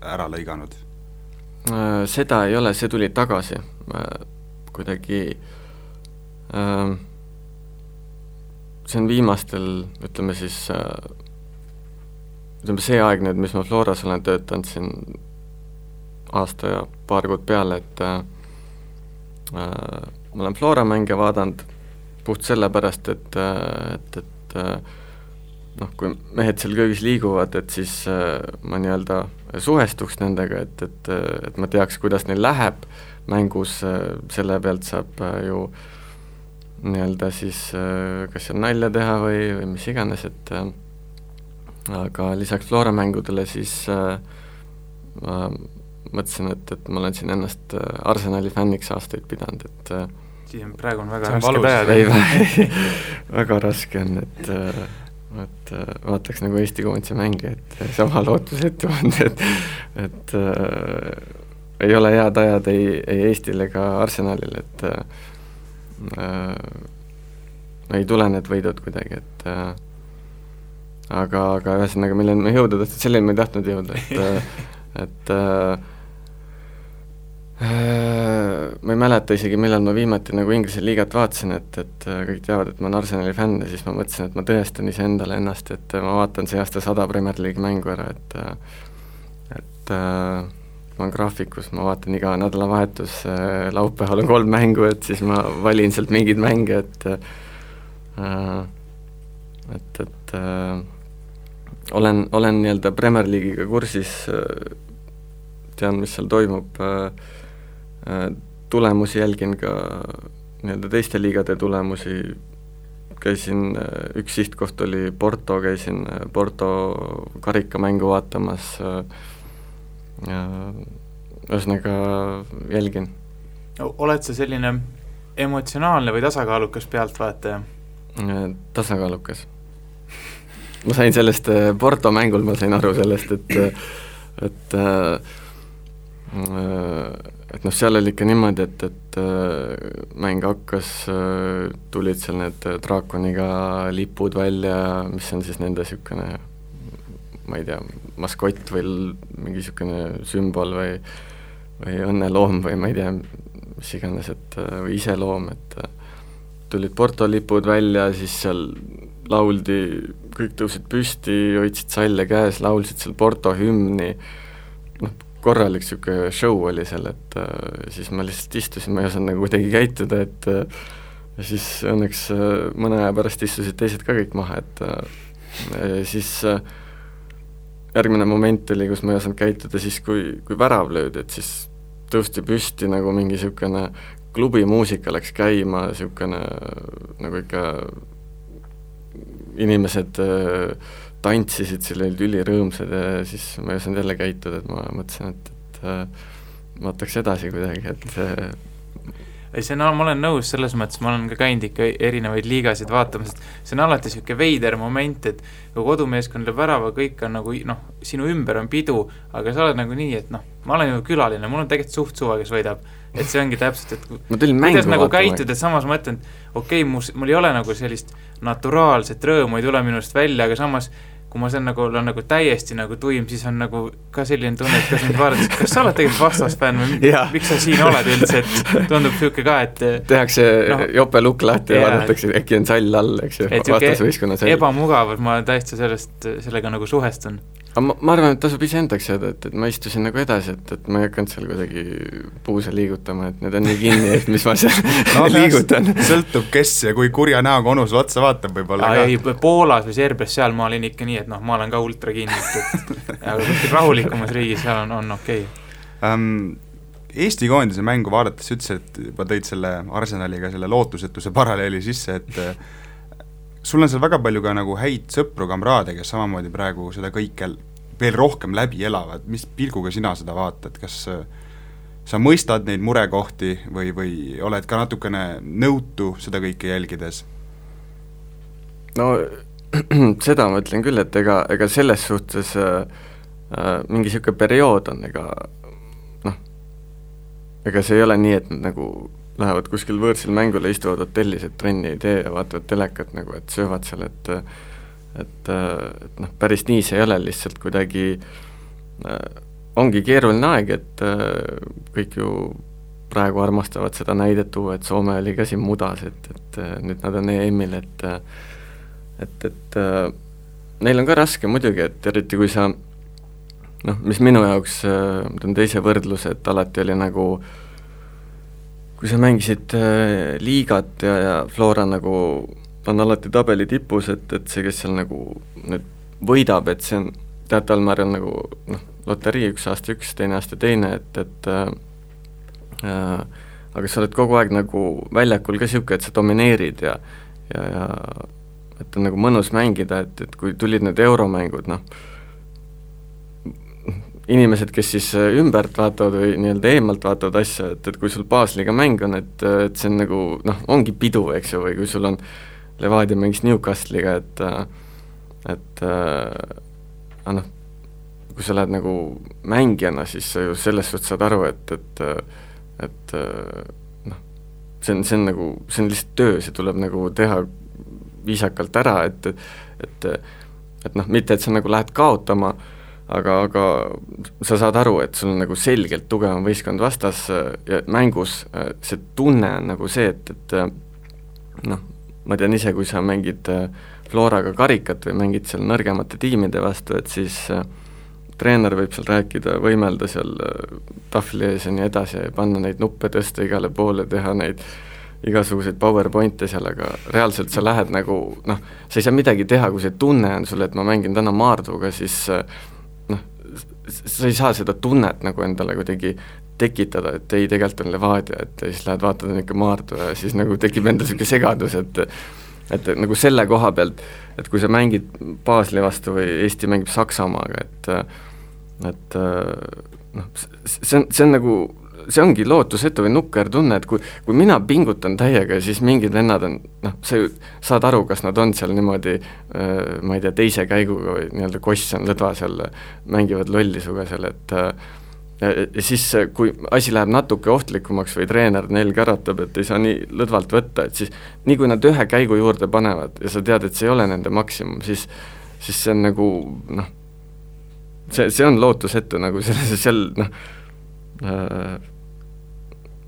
ära lõiganud? Seda ei ole, see tuli tagasi kuidagi see on viimastel, ütleme siis ütleme see aeg nüüd, mis ma Floras olen töötanud siin aasta ja paar kuud peale, et ma olen Flora mänge vaadanud puht sellepärast, et noh, kui mehed seal köögis liiguvad, et siis ma nii-öelda suhestuks nendega, et ma teaks, kuidas neil läheb mängus, selle pealt saab ju nii-öelda siis kas seal nalja teha või mis iganes, et aga lisaks Flora mängudele siis ma mõtlesin, et ma olen siin ennast Arsenali fänniks aastaid pidanud, et siis on praegu väga raske tajada. Väga raske on, et vaataks nagu Eesti koondise mänge, et sama lootusetu on, et ei ole hea tajad ei Eestil ega Arsenalil, et ei tule need võidud kuidagi, et aga ühesõnaga, milleni me jõuda tahtnud, selleni me ei tahtnud jõuda, et ma ei mäleta isegi, millal ma viimati nagu Inglise liigat vaatasin, et kõik teavad, et ma olen Arsenali fänn ja siis ma mõtlesin, et ma tõestan iseendale ennast, et ma vaatan see aasta 100 Premier League mängu ära, et ma olen graafikus, ma vaatan iga nädalavahetus, laupäeval on 3 mängu, et siis ma valin sealt mingeid mänge, et olen nii-öelda Premier League'iga kursis, tean, mis seal toimub, tulemusi jälgin ka nii-öelda teiste liigade tulemusi, käisin, üks sihtkoht oli Porto, käisin Porto karikamängu vaatamas, ühesõnaga jälgin. Oled sa selline emotsionaalne või tasakaalukas pealtvaataja? Tasakaalukas. Ma sain sellest Porto mängul, ma sain aru sellest, et noh, seal oli ikka niimoodi, et mäng hakkas, tulid seal need draakoniga lipud välja, mis on siis nende niisugune, ma ei tea, maskott või mingi niisugune sümbol või õnneloom või ma ei tea, mis iganes, või iseloom, et tulid Porto lipud välja, siis seal lauldi, kõik tõusid püsti, hoidsid salle käes, laulsid seal Porto hümni, noh, korralik niisugune show oli seal, et siis ma lihtsalt istusin, ma ei osanud nagu kuidagi käituda, et ja siis õnneks mõne aja pärast istusid teised ka kõik maha, et siis järgmine moment oli, kus ma ei osanud käituda siis, kui värav löödi, et siis tõusti püsti nagu mingi niisugune klubimuusika läks käima, niisugune nagu ikka inimesed tantsisid, seal olid ülirõõmsad ja siis ma ei osanud jälle käituda, et ma mõtlesin, et vaataks edasi kuidagi, et see on, ma olen nõus selles mõttes, ma olen ka käinud ikka erinevaid liigasid vaatamas, et see on alati niisugune veider moment, et kui kodumeeskond lööb värava, kõik on nagu, noh, sinu ümber on pidu, aga sa oled nagu nii, et noh, ma olen ju külaline, mul on tegelikult suht suva, kes võidab, et see ongi täpselt, et kuidas nagu käitud, et samas ma mõtlen, et okei, mul ei ole nagu sellist naturaalset rõõmu, ei tule minust välja, aga samas kui ma olen nagu täiesti nagu tuim, siis on nagu ka selline tunne, et kas mind vaadates, kas sa oled tegelikult vastasfänn või miks sa siin oled üldse, et tundub niisugune ka, et tehakse jope lukk lahti ja vaadatakse, äkki on sall all, eks ju, vastasvõistkonna sall. Ebamugavus, ma täiesti sellega nagu suhestun. Ma arvan, et tasub ise endaks jääda, et ma istusin nagu edasi, et ma ei hakanud seal kuidagi puuse liigutama, et need on nii kinni, et mis ma seal liigutan. Sõltub kes ja kui kurja näoga onu sulle otsa vaatab võib-olla ka. Ei, Poolas või Serbias, seal ma olin ikka nii, et noh, ma olen ka ultra kinni, aga kuskil rahulikumas riigis seal on okei. Eesti koondise mängu vaadates ütles, et juba tõid selle Arsenaliga selle lootusetuse paralleeli sisse, et sul on seal väga palju ka nagu häid sõpru, kamraade, kes samamoodi praegu seda kõike veel rohkem läbi elavad. Mis pilguga sina seda vaatad? Kas sa mõistad neid murekohti või oled ka natukene nõutu seda kõike jälgides? No seda ma ütlen küll, et ega selles suhtes mingi niisugune periood on, ega see ei ole nii, et nad nagu lähevad kuskil võõrsil mängule, istuvad hotellis, et trenni ei tee ja vaatavad telekat nagu, et söövad seal, et noh, päris nii see ei ole, lihtsalt kuidagi ongi keeruline aeg, et kõik ju praegu armastavad seda näidet tuua, et Soome oli ka siin mudas, et nüüd nad on EM-il, et neil on ka raske muidugi, et eriti kui sa noh, mis minu jaoks, ma teen teise võrdluse, et alati oli nagu kui sa mängisid liigat ja Flora nagu on alati tabeli tipus, et see, kes seal nagu nüüd võidab, et see on teataval määral nagu loterii, üks aasta üks, teine aasta teine, et aga sa oled kogu aeg nagu väljakul ka siuke, et sa domineerid ja et on nagu mõnus mängida, et kui tulid need euromängud, inimesed, kes siis ümbert vaatavad või nii-öelda eemalt vaatavad asja, et kui sul baasliga mäng on, et see on nagu, ongi pidu, eks ju, või kui sul on Levadia mängis Newcastle'iga, et kui sa lähed nagu mängijana, siis sa ju selles suhtes saad aru, et see on nagu, see on lihtsalt töö, see tuleb nagu teha viisakalt ära, et mitte, et sa nagu lähed kaotama, aga sa saad aru, et sul on nagu selgelt tugevam võistkond vastas ja mängus see tunne on nagu see, et ma tean ise, kui sa mängid Floraga karikat või mängid seal nõrgemate tiimide vastu, et siis treener võib seal rääkida, võimelda seal tahvli ees ja nii edasi ja panna neid nuppe tõsta igale poole, teha neid igasuguseid PowerPointe seal, aga reaalselt sa lähed nagu, sa ei saa midagi teha, kui see tunne on sulle, et ma mängin täna Maarduga, siis sa ei saa seda tunnet nagu endale kuidagi tekitada, et ei, tegelikult on Levadia, et siis lähed vaatad ikka Maardu ja siis nagu tekib endal selline segadus, et nagu selle koha pealt, et kui sa mängid Baseli vastu või Eesti mängib Saksamaaga, et see on nagu, see ongi lootusetu või nukker tunne, et kui mina pingutan täiega, siis mingid vennad on, sa ju saad aru, kas nad on seal niimoodi, ma ei tea, teise käiguga või nii-öelda koss on lõdva seal, mängivad lolli suga seal, et ja siis, kui asi läheb natuke ohtlikumaks või treener neil käratab, et ei saa nii lõdvalt võtta, et siis nii kui nad ühe käigu juurde panevad ja sa tead, et see ei ole nende maksimum, siis see on nagu, see on lootusetu nagu seal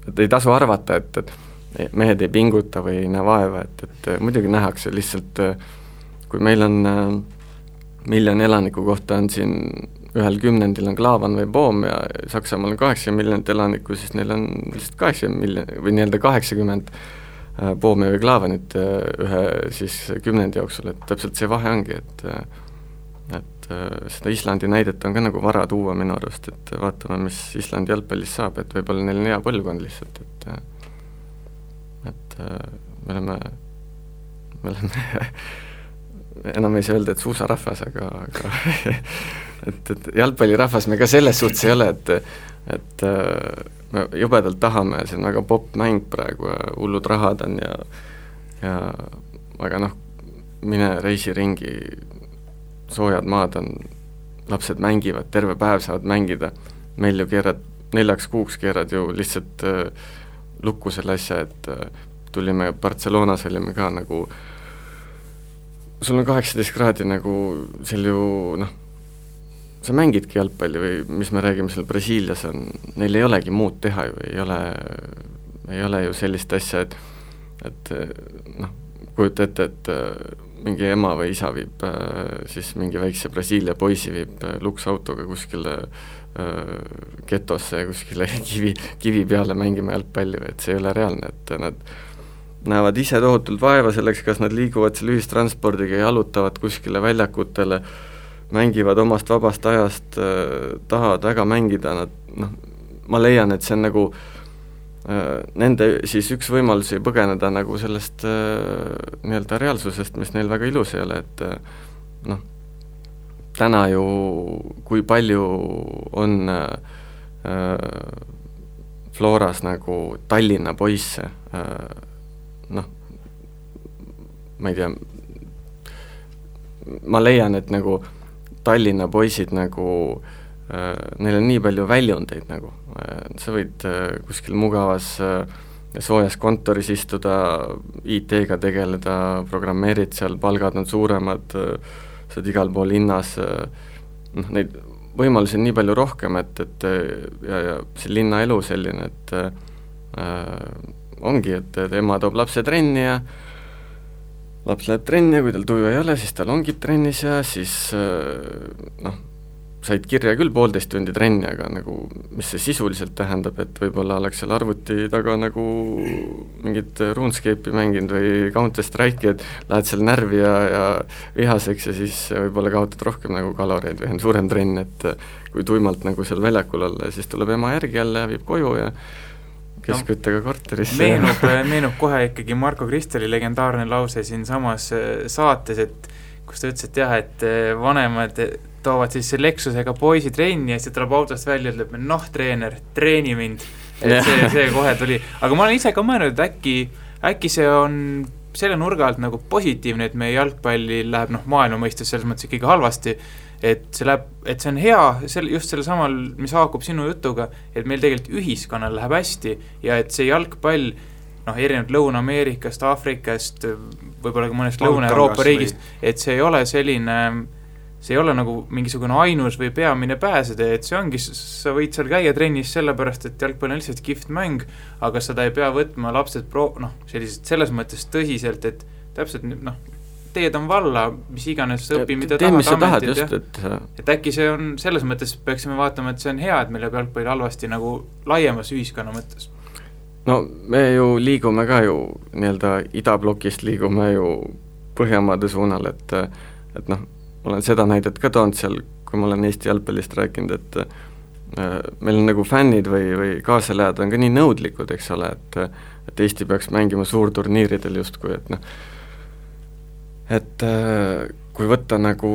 et ei tasu arvata, et mehed ei pinguta või ei näe vaeva, et muidugi nähakse lihtsalt, kui meil on 1 miljoni elaniku kohta on siin ühel 10 on Klaavan või Poom ja Saksamaal on 80 miljonit elanikku, siis neil on lihtsalt 80 miljonit või nii-öelda 80 Poomi või Klaavanit ühe siis 10 jooksul, et täpselt see vahe ongi, et seda Islandi näidet on ka nagu vara tuua minu arust, et vaatame, mis Islandi jalgpallis saab, et võib-olla neil on hea põlvkond lihtsalt, et me oleme enam ei saa öelda, et suusarahvas, aga et jalgpallirahvas me ka selles suhtes ei ole, et me jubedalt tahame, see on väga popp mäng praegu ja hullud rahad on ja aga mine reisi ringi, soojad maad on, lapsed mängivad, terve päev saavad mängida, meil ju keerad 4 kuuks keerad ju lihtsalt lukku selle asja, et tulime Barcelonas, olime ka nagu sul on 18 kraadi nagu seal ju sa mängidki jalgpalli või mis me räägime seal Brasiilias on, neil ei olegi muud teha ju, ei ole ju sellist asja, et kujuta ette, et mingi ema või isa viib siis mingi väikse Brasiilia poisi viib luksautoga kuskile getosse ja kuskile kivi peale mängima jalgpalli, et see ei ole reaalne, et nad näevad ise tohutult vaeva selleks, kas nad liiguvad seal ühistranspordiga, jalutavad kuskile väljakutele, mängivad omast vabast ajast, tahavad väga mängida, ma leian, et see on nagu nende siis üks võimalusi põgeneda nagu sellest nii-öelda reaalsusest, mis neil väga ilus ei ole, et täna ju kui palju on Floras nagu Tallinna poisse, ma ei tea, ma leian, et nagu Tallinna poisid nagu neil on nii palju väljundeid nagu, sa võid kuskil mugavas soojas kontoris istuda, IT-ga tegeleda, programmeerid seal, palgad on suuremad, sa oled igal pool linnas, neid võimalusi on nii palju rohkem, et ja see linnaelu selline, et ongi, et ema toob lapse trenni ja laps läheb trenni ja kui tal tuju ei ole, siis tal ongib trennis ja siis said kirja küll 1,5 tundi trenni, aga nagu mis see sisuliselt tähendab, et võib-olla oleks seal arvuti taga nagu mingit RuneScape'i mänginud või Counter-Strike'i, et lähed seal närvi ja vihaseks ja siis võib-olla kaotad rohkem nagu kaloreid või on suurem trenn, et kui tuimalt nagu seal väljakul olla ja siis tuleb ema järgi jälle ja viib koju ja keskküttega korterisse. Meenub kohe ikkagi Marko Kristeli legendaarne lause siin samas saates, et kus ta ütles, et jah, et vanemad toovad siis Lexusega poisi trenni ja siis tuleb autost välja ja ütleb, treener, treeni mind. Et see kohe tuli. Aga ma olen ise ka mõelnud, et äkki see on selle nurga alt nagu positiivne, et meie jalgpalli läheb maailma mõistes selles mõttes ikkagi halvasti, et see on hea just selle samal, mis haakub sinu jutuga, et meil tegelikult ühiskonnal läheb hästi ja et see jalgpall erinevalt Lõuna-Ameerikast, Aafrikast, võib-olla ka mõnest Lõuna-Euroopa riigist, et see ei ole selline, see ei ole nagu mingisugune ainus või peamine pääsede, et see ongi, sa võid seal käia trennis sellepärast, et jalgpall on lihtsalt kihvt mäng, aga seda ei pea võtma lapsed sellised selles mõttes tõsiselt, et täpselt teed on valla, mis iganes õpi, mida tahad ametid, et äkki see on, selles mõttes peaksime vaatama, et see on hea, et meil jääb jalgpall halvasti nagu laiemas ühiskonna mõttes. No me ju liigume ka ju nii-öelda idablokist liigume ju Põhjamaade suunal, et olen seda näidet ka toonud seal, kui ma olen Eesti jalgpallist rääkinud, et meil on nagu fännid või kaasalejad on ka nii nõudlikud, eks ole, et Eesti peaks mängima suurturniiridel justkui, et kui võtta nagu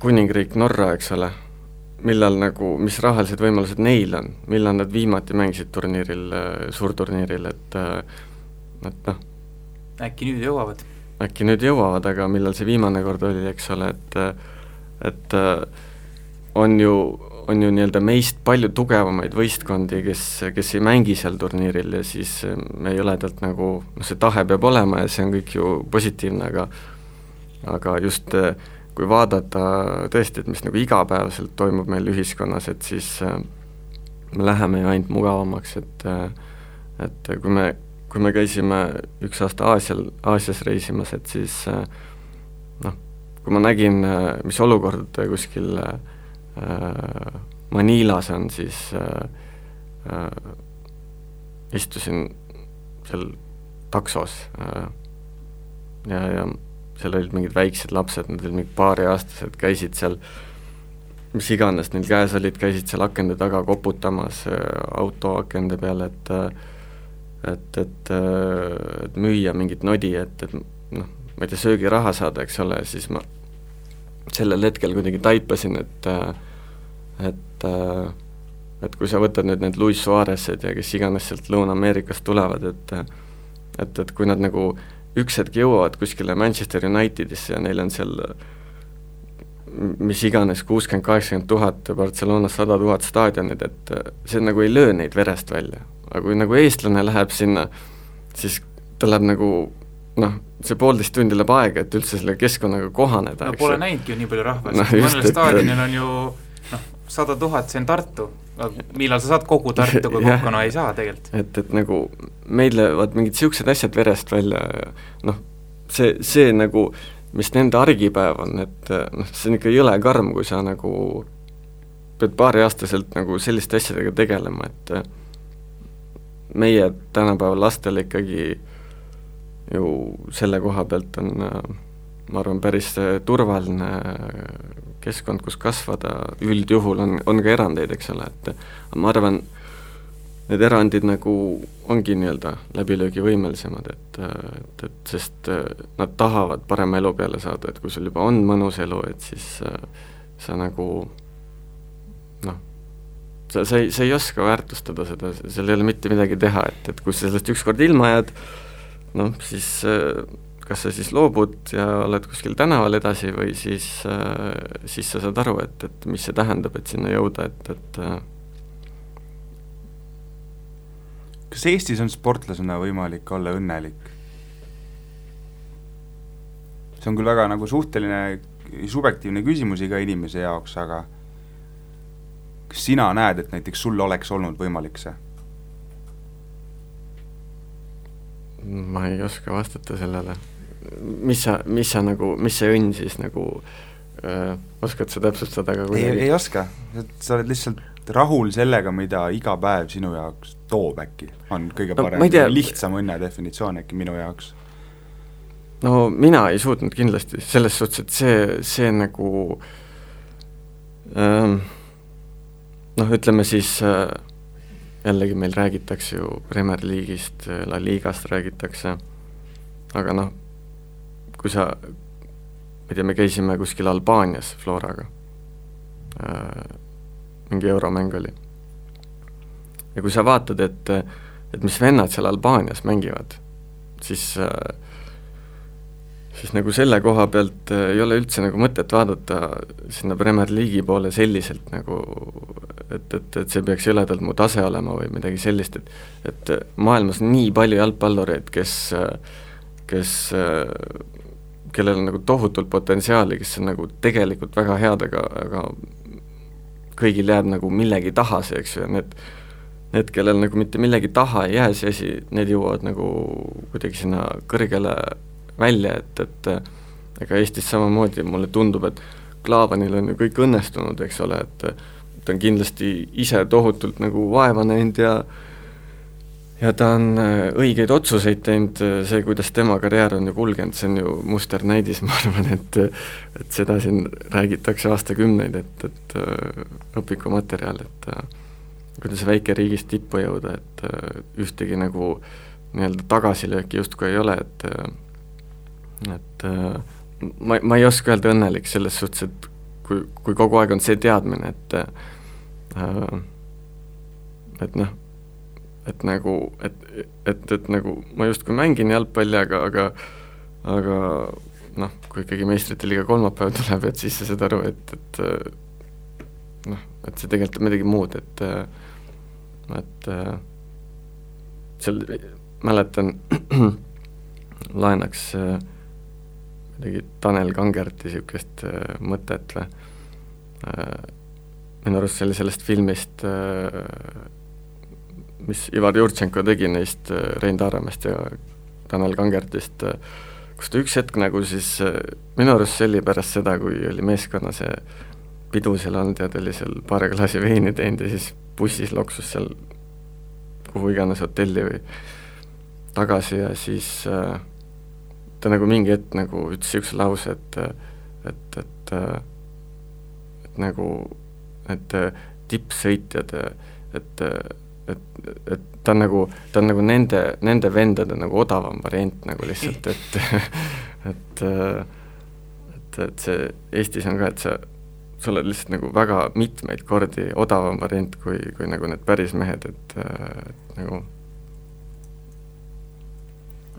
kuningriik Norra, eks ole, millal nagu, mis rahalised võimalused neil on, millal nad viimati mängisid turniiril, suurturniiril, et äkki nüüd jõuavad. Äkki nüüd jõuavad, aga millal see viimane kord oli, eks ole, et on ju nii-öelda meist palju tugevamaid võistkondi, kes ei mängi seal turniiril ja siis me jõledalt nagu, see tahe peab olema ja see on kõik ju positiivne, aga just kui vaadata tõesti, et mis nagu igapäevaselt toimub meil ühiskonnas, et siis me läheme ju ainult mugavamaks, et kui me käisime üks aasta Aasias reisimas, et siis kui ma nägin, mis olukord kuskil Manilas on, siis istusin seal taksos ja seal olid mingid väiksed lapsed, nad olid mingid paariaastased, käisid seal, mis iganes neil käes olid, käisid seal akende taga koputamas auto akende peale, et müüa mingit nodi, et ma ei tea, söögiraha saada, eks ole, siis ma sellel hetkel kuidagi taipasin, et kui sa võtad need Luis Suarezed ja kes iganes sealt Lõuna-Ameerikast tulevad, et kui nad nagu üks hetk jõuavad kuskile Manchester Unitedisse ja neil on seal mis iganes 60-80 000, Barcelonas 100 000 staadionid, et see nagu ei löö neid verest välja. Aga kui nagu eestlane läheb sinna, siis ta läheb nagu see 1,5 tundi läheb aega, et üldse selle keskkonnaga kohaneda. Pole näinudki ju nii palju rahvast, mõnel staadionil on ju 100 000, see on Tartu, millal sa saad kogu Tartu, kui kokkuna ei saa tegelikult. Et nagu meil lähevad mingid siuksed asjad verest välja, see nagu, mis nende argipäev on, et see on ikka jõle karm, kui sa nagu pead paariaastaselt nagu selliste asjadega tegelema, et meie tänapäeval lastel ikkagi ju selle koha pealt on, ma arvan, päris turvaline keskkond, kus kasvada, üldjuhul on ka erandeid, eks ole, et ma arvan, need erandid nagu ongi nii-öelda läbilöögivõimelisemad, et sest nad tahavad parema elu peale saada, et kui sul juba on mõnus elu, et siis sa nagu sa ei oska väärtustada seda, seal ei ole mitte midagi teha, et kui sa sellest ükskord ilma jääd, siis kas sa siis loobud ja oled kuskil tänaval edasi või siis sa saad aru, et mis see tähendab, et sinna jõuda, et Kas Eestis on sportlasena võimalik olla õnnelik? See on küll väga nagu suhteline, subjektiivne küsimus iga inimese jaoks, aga kas sina näed, et näiteks sul oleks olnud võimalik see? Ma ei oska vastata sellele. Mis see õnn siis nagu oskad sa täpsustada ka kuidagi? Ei oska, sa oled lihtsalt rahul sellega, mida iga päev sinu jaoks toob äkki, on kõige parem, lihtsam õnne definitsioon äkki minu jaoks. No mina ei suutnud kindlasti selles suhtes, et see nagu noh, ütleme siis jällegi meil räägitakse ju Premier League'ist, La Ligast räägitakse, aga noh, kui sa, ma ei tea, me käisime kuskil Albaanias Floraga, mingi euromäng oli. Ja kui sa vaatad, et mis vennad seal Albaanias mängivad, siis nagu selle koha pealt ei ole üldse nagu mõtet vaadata sinna Premier League'i poole selliselt nagu, et see peaks jõledalt mu tase olema või midagi sellist, et maailmas on nii palju jalgpallureid, kellel on nagu tohutult potentsiaali, kes on nagu tegelikult väga head, aga kõigil jääb nagu millegi taha see, eks ju, ja need, kellel nagu mitte millegi taha ei jää see asi, need jõuavad nagu kuidagi sinna kõrgele välja, et ega Eestis samamoodi mulle tundub, et Klaavanil on ju kõik õnnestunud, eks ole, et ta on kindlasti ise tohutult nagu vaeva näinud ja ta on õigeid otsuseid teinud, see, kuidas tema karjäär on ju kulgenud, see on ju musternäidis, ma arvan, et seda siin räägitakse aastakümneid, et õpikumaterjal, et kuidas väike riigist tippu jõuda, et ühtegi nagu nii-öelda tagasilööki justkui ei ole, et ma ei oska öelda õnnelik selles suhtes, et kui kogu aeg on see teadmine, et noh, et nagu ma justkui mängin jalgpalli, aga noh, kui ikkagi meistrite liiga kolmapäev tuleb, et siis sa saad aru, et noh, et see tegelikult on midagi muud, et seal mäletan laenaks midagi Tanel Kangerti niisugust mõtet või minu arust see oli sellest filmist mis Ivar Jurtšenko tegi neist Rein Taaramest ja Tanel Kangertist, kus ta üks hetk nagu siis minu arust see oli pärast seda, kui oli meeskonna see pidu seal olnud ja ta oli seal paar klaasi veini teinud ja siis bussis loksus seal kuhu iganes hotelli või tagasi ja siis ta nagu mingi hetk nagu ütles üks lause, et nagu et tippsõitjad, et ta on nagu nende vendade nagu odavam variant nagu lihtsalt, et see Eestis on ka, et sa oled lihtsalt nagu väga mitmeid kordi odavam variant kui nagu need päris mehed, et nagu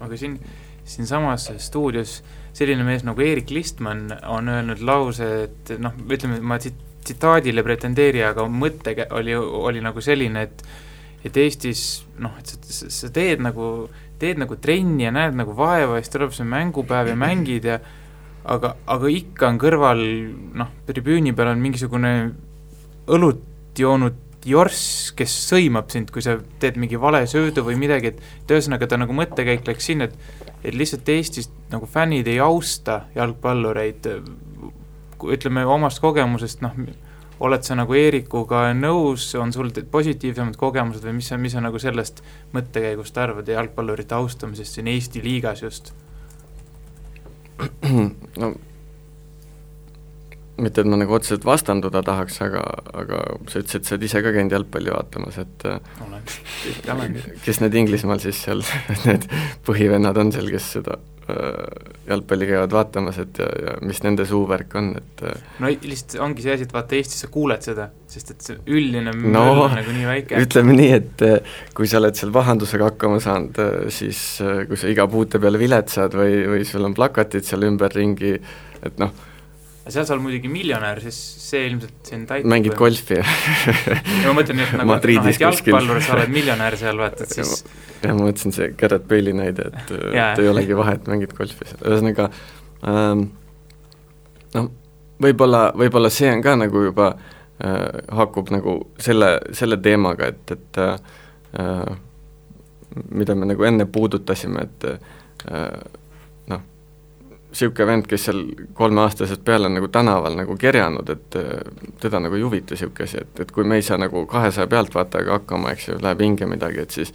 aga siin samas stuudios selline mees nagu Erik Listman on öelnud lause, et noh, ütleme, ma tsitaadile pretendeeri, aga mõte oli nagu selline, et Eestis noh, et sa teed nagu trenni ja näed nagu vaeva ja siis tuleb see mängupäev ja mängid ja aga ikka on kõrval noh, tribüüni peal on mingisugune õlut joonud jorss, kes sõimab sind, kui sa teed mingi vale söödu või midagi, et ühesõnaga ta nagu mõttekäik läks sinna, et lihtsalt Eestis nagu fännid ei austa jalgpallureid, ütleme omast kogemusest, noh, oled sa nagu Eerikuga nõus, on sul positiivsemad kogemused või mis sa nagu sellest mõttekäigust arvad ja jalgpallurite austamisest siin Eesti liigas just? No mitte, et ma nagu otseselt vastanduda tahaks, aga sa ütlesid, et sa oled ise ka käinud jalgpalli vaatamas, et olen. Kes need Inglismaal siis seal, need põhivennad on seal, kes seda jalgpalli käivad vaatamas, et ja mis nende suuvärk on, et no lihtsalt ongi see asi, et vaata Eestis sa kuuled seda, sest et see üldine möll on nagu nii väike. Ütleme nii, et kui sa oled seal vahandusega hakkama saanud, siis kui sa iga puute peale viletsad või sul on plakatid seal ümberringi, et noh, seal sa oled muidugi miljonär, siis see ilmselt siin täitub. Mängid golfi ja ma mõtlen, et nagu et jalgpallur sa oled miljonär seal, vaatad siis. Ja ma mõtlesin see Gareth Bale'i näide, et ei olegi vahe, et mängid golfi seal. Ühesõnaga, no, võib-olla see on ka nagu juba hakkub nagu selle teemaga, et mida me nagu enne puudutasime, et noh, siuke vend, kes seal 3-aastasest peale on nagu tänaval nagu kerjanud, et teda nagu ei huvita siuke asi, et kui me ei saa nagu 200 pealtvaatajaga hakkama, eks ju, läheb hinge midagi, et siis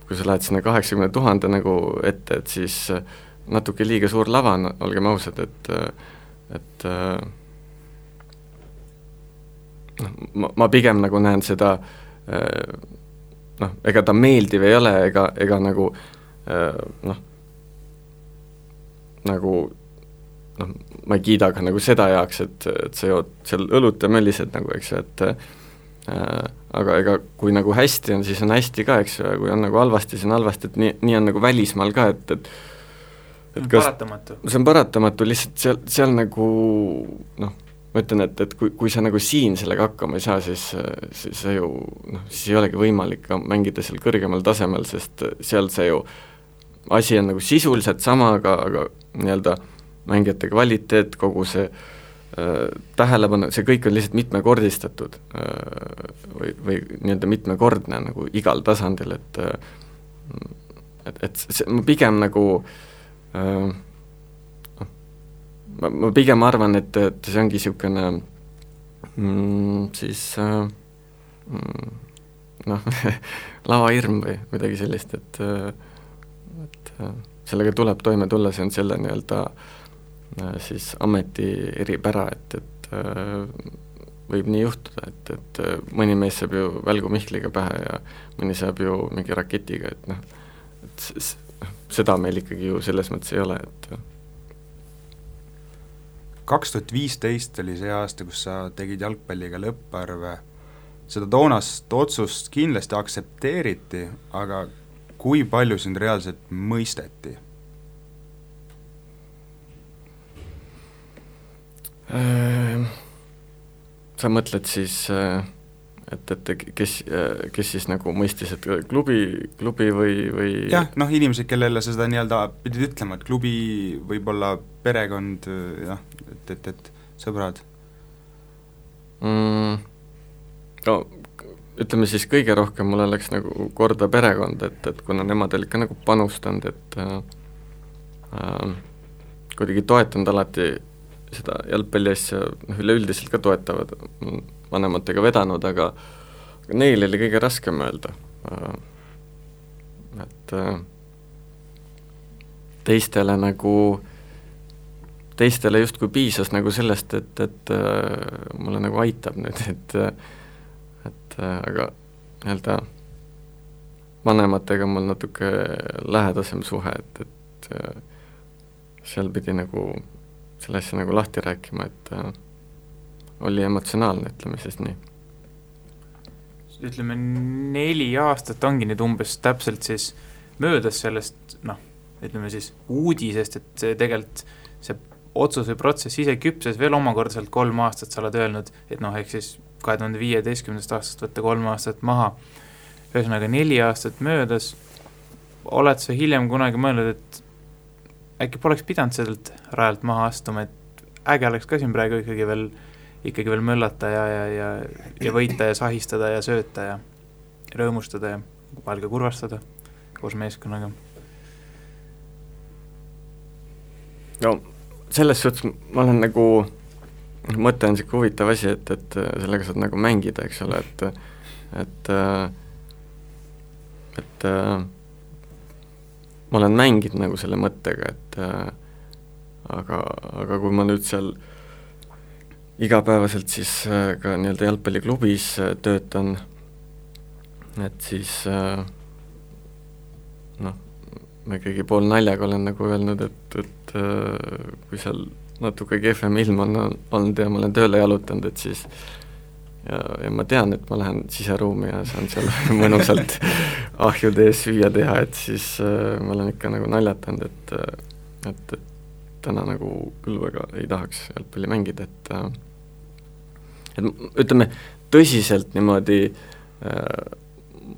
kui sa lähed sinna 80 000 nagu ette, et siis natuke liiga suur lava on, olgem ausad, et ma pigem nagu näen seda, ega ta meeldiv ei ole, ega nagu ma ei kiida ka nagu seda heaks, et sa jood seal õlut ja möllised nagu, eks ju, et aga ega kui nagu hästi on, siis on hästi ka, eks ju, ja kui on nagu halvasti, siis on halvasti, et nii on nagu välismaal ka, et paratamatu. See on paratamatu, lihtsalt seal nagu ma ütlen, et kui sa nagu siin sellega hakkama ei saa, siis see ju, siis ei olegi võimalik ka mängida seal kõrgemal tasemel, sest seal see ju asi on nagu sisuliselt sama, aga nii-öelda mängijate kvaliteet, kogu see tähelepanu, see kõik on lihtsalt mitmekordistatud või nii-öelda mitmekordne nagu igal tasandil, et see, ma pigem nagu ma pigem arvan, et see ongi niisugune siis lavahirm või midagi sellist, et sellega tuleb toime tulla, see on selle nii-öelda siis ameti eripära, et võib nii juhtuda, et mõni mees saab ju välgu Mihkliga pähe ja mõni saab ju mingi raketiga, et seda meil ikkagi ju selles mõttes ei ole, et 2015 oli see aasta, kus sa tegid jalgpalliga lõpparve, seda toonast otsust kindlasti aktsepteeriti, aga kui palju sind reaalselt mõisteti? Sa mõtled siis, et kes siis nagu mõistis, et klubi või jah, inimesed, kellele sa seda nii-öelda pidid ütlema, et klubi võib-olla perekond, jah, et sõbrad? No ütleme siis kõige rohkem mulle läks nagu korda perekond, et kuna nemad olid ka nagu panustanud, et kuidagi toetanud alati seda jalgpalli asja, üleüldiselt ka toetavad, vanematega vedanud, aga neil oli kõige raskem öelda, et teistele justkui piisas nagu sellest, et mulle nagu aitab nüüd, et aga nii-öelda vanematega mul natuke lähedasem suhe, et seal pidi nagu selle asja nagu lahti rääkima, et oli emotsionaalne, ütleme siis nii. Ütleme 4 aastat ongi nüüd umbes täpselt siis möödas sellest, ütleme siis uudisest, et see tegelikult see otsus või protsess ise küpses veel omakordaselt 3 aastat, sa oled öelnud, et ehk siis 2015. aastast võtta 3 aastat maha. Ühesõnaga 4 aastat möödas, oled sa hiljem kunagi mõelnud, et äkki poleks pidanud sellelt rajalt maha astuma, et äge oleks ka siin praegu ikkagi veel möllata ja võita ja sahistada ja sööta ja rõõmustada ja vahel ka kurvastada koos meeskonnaga? No selles suhtes ma olen nagu, mõte on siuke huvitav asi, et sellega saad nagu mängida, eks ole, et ma olen mänginud nagu selle mõttega, et aga kui ma nüüd seal igapäevaselt siis ka nii-öelda jalgpalliklubis töötan, et siis ma ikkagi pool naljaga olen nagu öelnud, et kui seal natuke kehvem ilm on olnud ja ma olen tööle jalutanud, et siis ja ma tean, et ma lähen siseruumi ja saan seal mõnusalt ahjude ees süüa teha, et siis ma olen ikka nagu naljatanud, et täna nagu küll väga ei tahaks jalgpalli mängida, et ütleme, tõsiselt niimoodi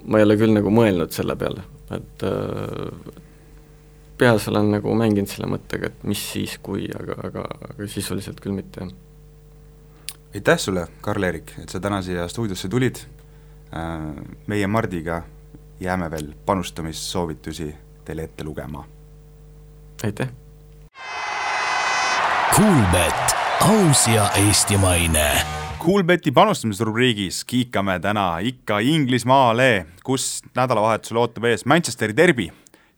ma ei ole küll nagu mõelnud selle peale, et peas olen nagu mänginud selle mõttega, et mis siis kui, aga sisuliselt küll mitte. Aitäh sulle, Karl-Erik, et sa täna siia stuudiosse tulid. Meie Mardiga jääme veel panustamissoovitusi teile ette lugema. Aitäh! Kuulbett, aus ja eestimaine. Kuulbeti panustamisrubriigis kiikame täna ikka Inglismaale, kus nädalavahetusel ootab ees Manchesteri derbi.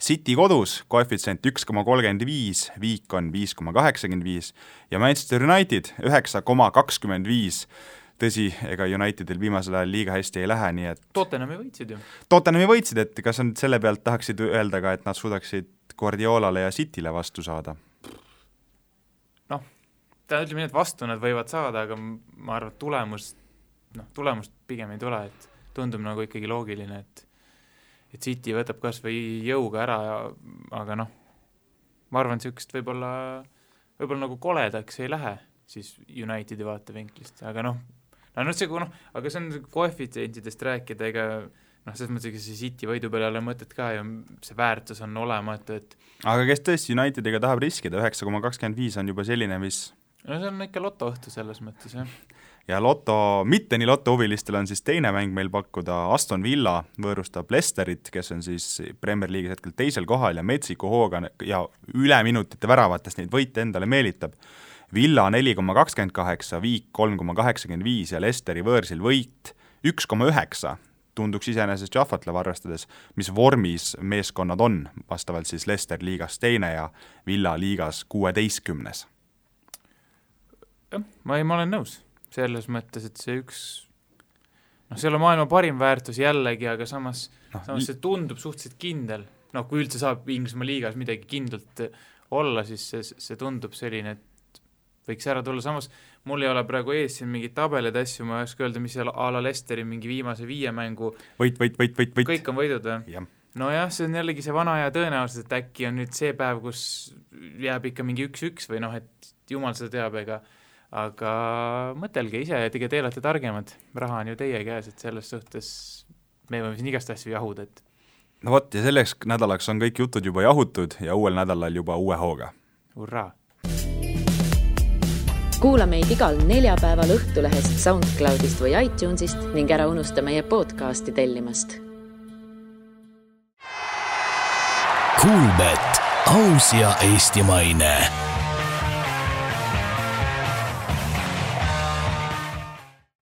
City kodus, koefitsient 1,35, viik on 5,85 ja Manchester United 9,25. Tõsi, ega Unitedil viimasel ajal liiga hästi ei lähe, nii et Tottenhami võitsid ju. Tottenhami võitsid, et kas on selle pealt tahaksid öelda ka, et nad suudaksid Guardiolale ja Cityle vastu saada? Noh, ta ütleme nii, et vastu nad võivad saada, aga ma arvan, tulemust pigem ei tule, et tundub nagu ikkagi loogiline, et City võtab kas või jõuga ära, aga noh, ma arvan, sihukest võib-olla nagu koledaks ei lähe siis Unitedi vaatevinklist, aga aga see on koefitsientidest rääkida, ega selles mõttes, et see City võidu peale ei ole mõtet ka ja see väärtus on olematu, et aga kes tõesti Unitediga tahab riskida, 9,25 on juba selline, mis no see on ikka lotoõhtu selles mõttes, jah. Ja mitte nii lotohuvilistel on siis teine mäng meil pakkuda. Aston Villa võõrustab Leicesterit, kes on siis Premier League'is hetkel teisel kohal ja metsiku hooga ja üle minutite väravatest neid võite endale meelitab. Villa 4,28, viik 3,85 ja Leicesteri võõrsil võit 1,9 tunduks iseenesest jahvatlev arvestades, mis vormis meeskonnad on, vastavalt siis Leicester liigas teine ja Villa liigas 16. Ma olen nõus. Selles mõttes, et see see ei ole maailma parim väärtus jällegi, aga samas see tundub suhteliselt kindel. Kui üldse saab Inglismaa liigas midagi kindlalt olla, siis see tundub selline, et võiks ära tulla. Samas mul ei ole praegu ees siin mingid tabelid asju, ma ei oska öelda, mis seal a la Leicesteri mingi viimase 5 mängu võit. Kõik on võidud või? Ja. Nojah, see on jällegi see vana ja tõenäoliselt, et äkki on nüüd see päev, kus jääb ikka mingi 1-1 või et jumal seda teab, aga mõtelge ise, et te olete targemad, raha on ju teie käes, et selles suhtes me võime siin igast asju jahuda, et no vot, ja selleks nädalaks on kõik jutud juba jahutud ja uuel nädalal juba uue hooga. Hurraa! Kuula meid igal neljapäeval Õhtulehest, SoundCloudist või iTunesist ning ära unusta meie podcasti tellimast. Kuulbett, aus ja eestimaine.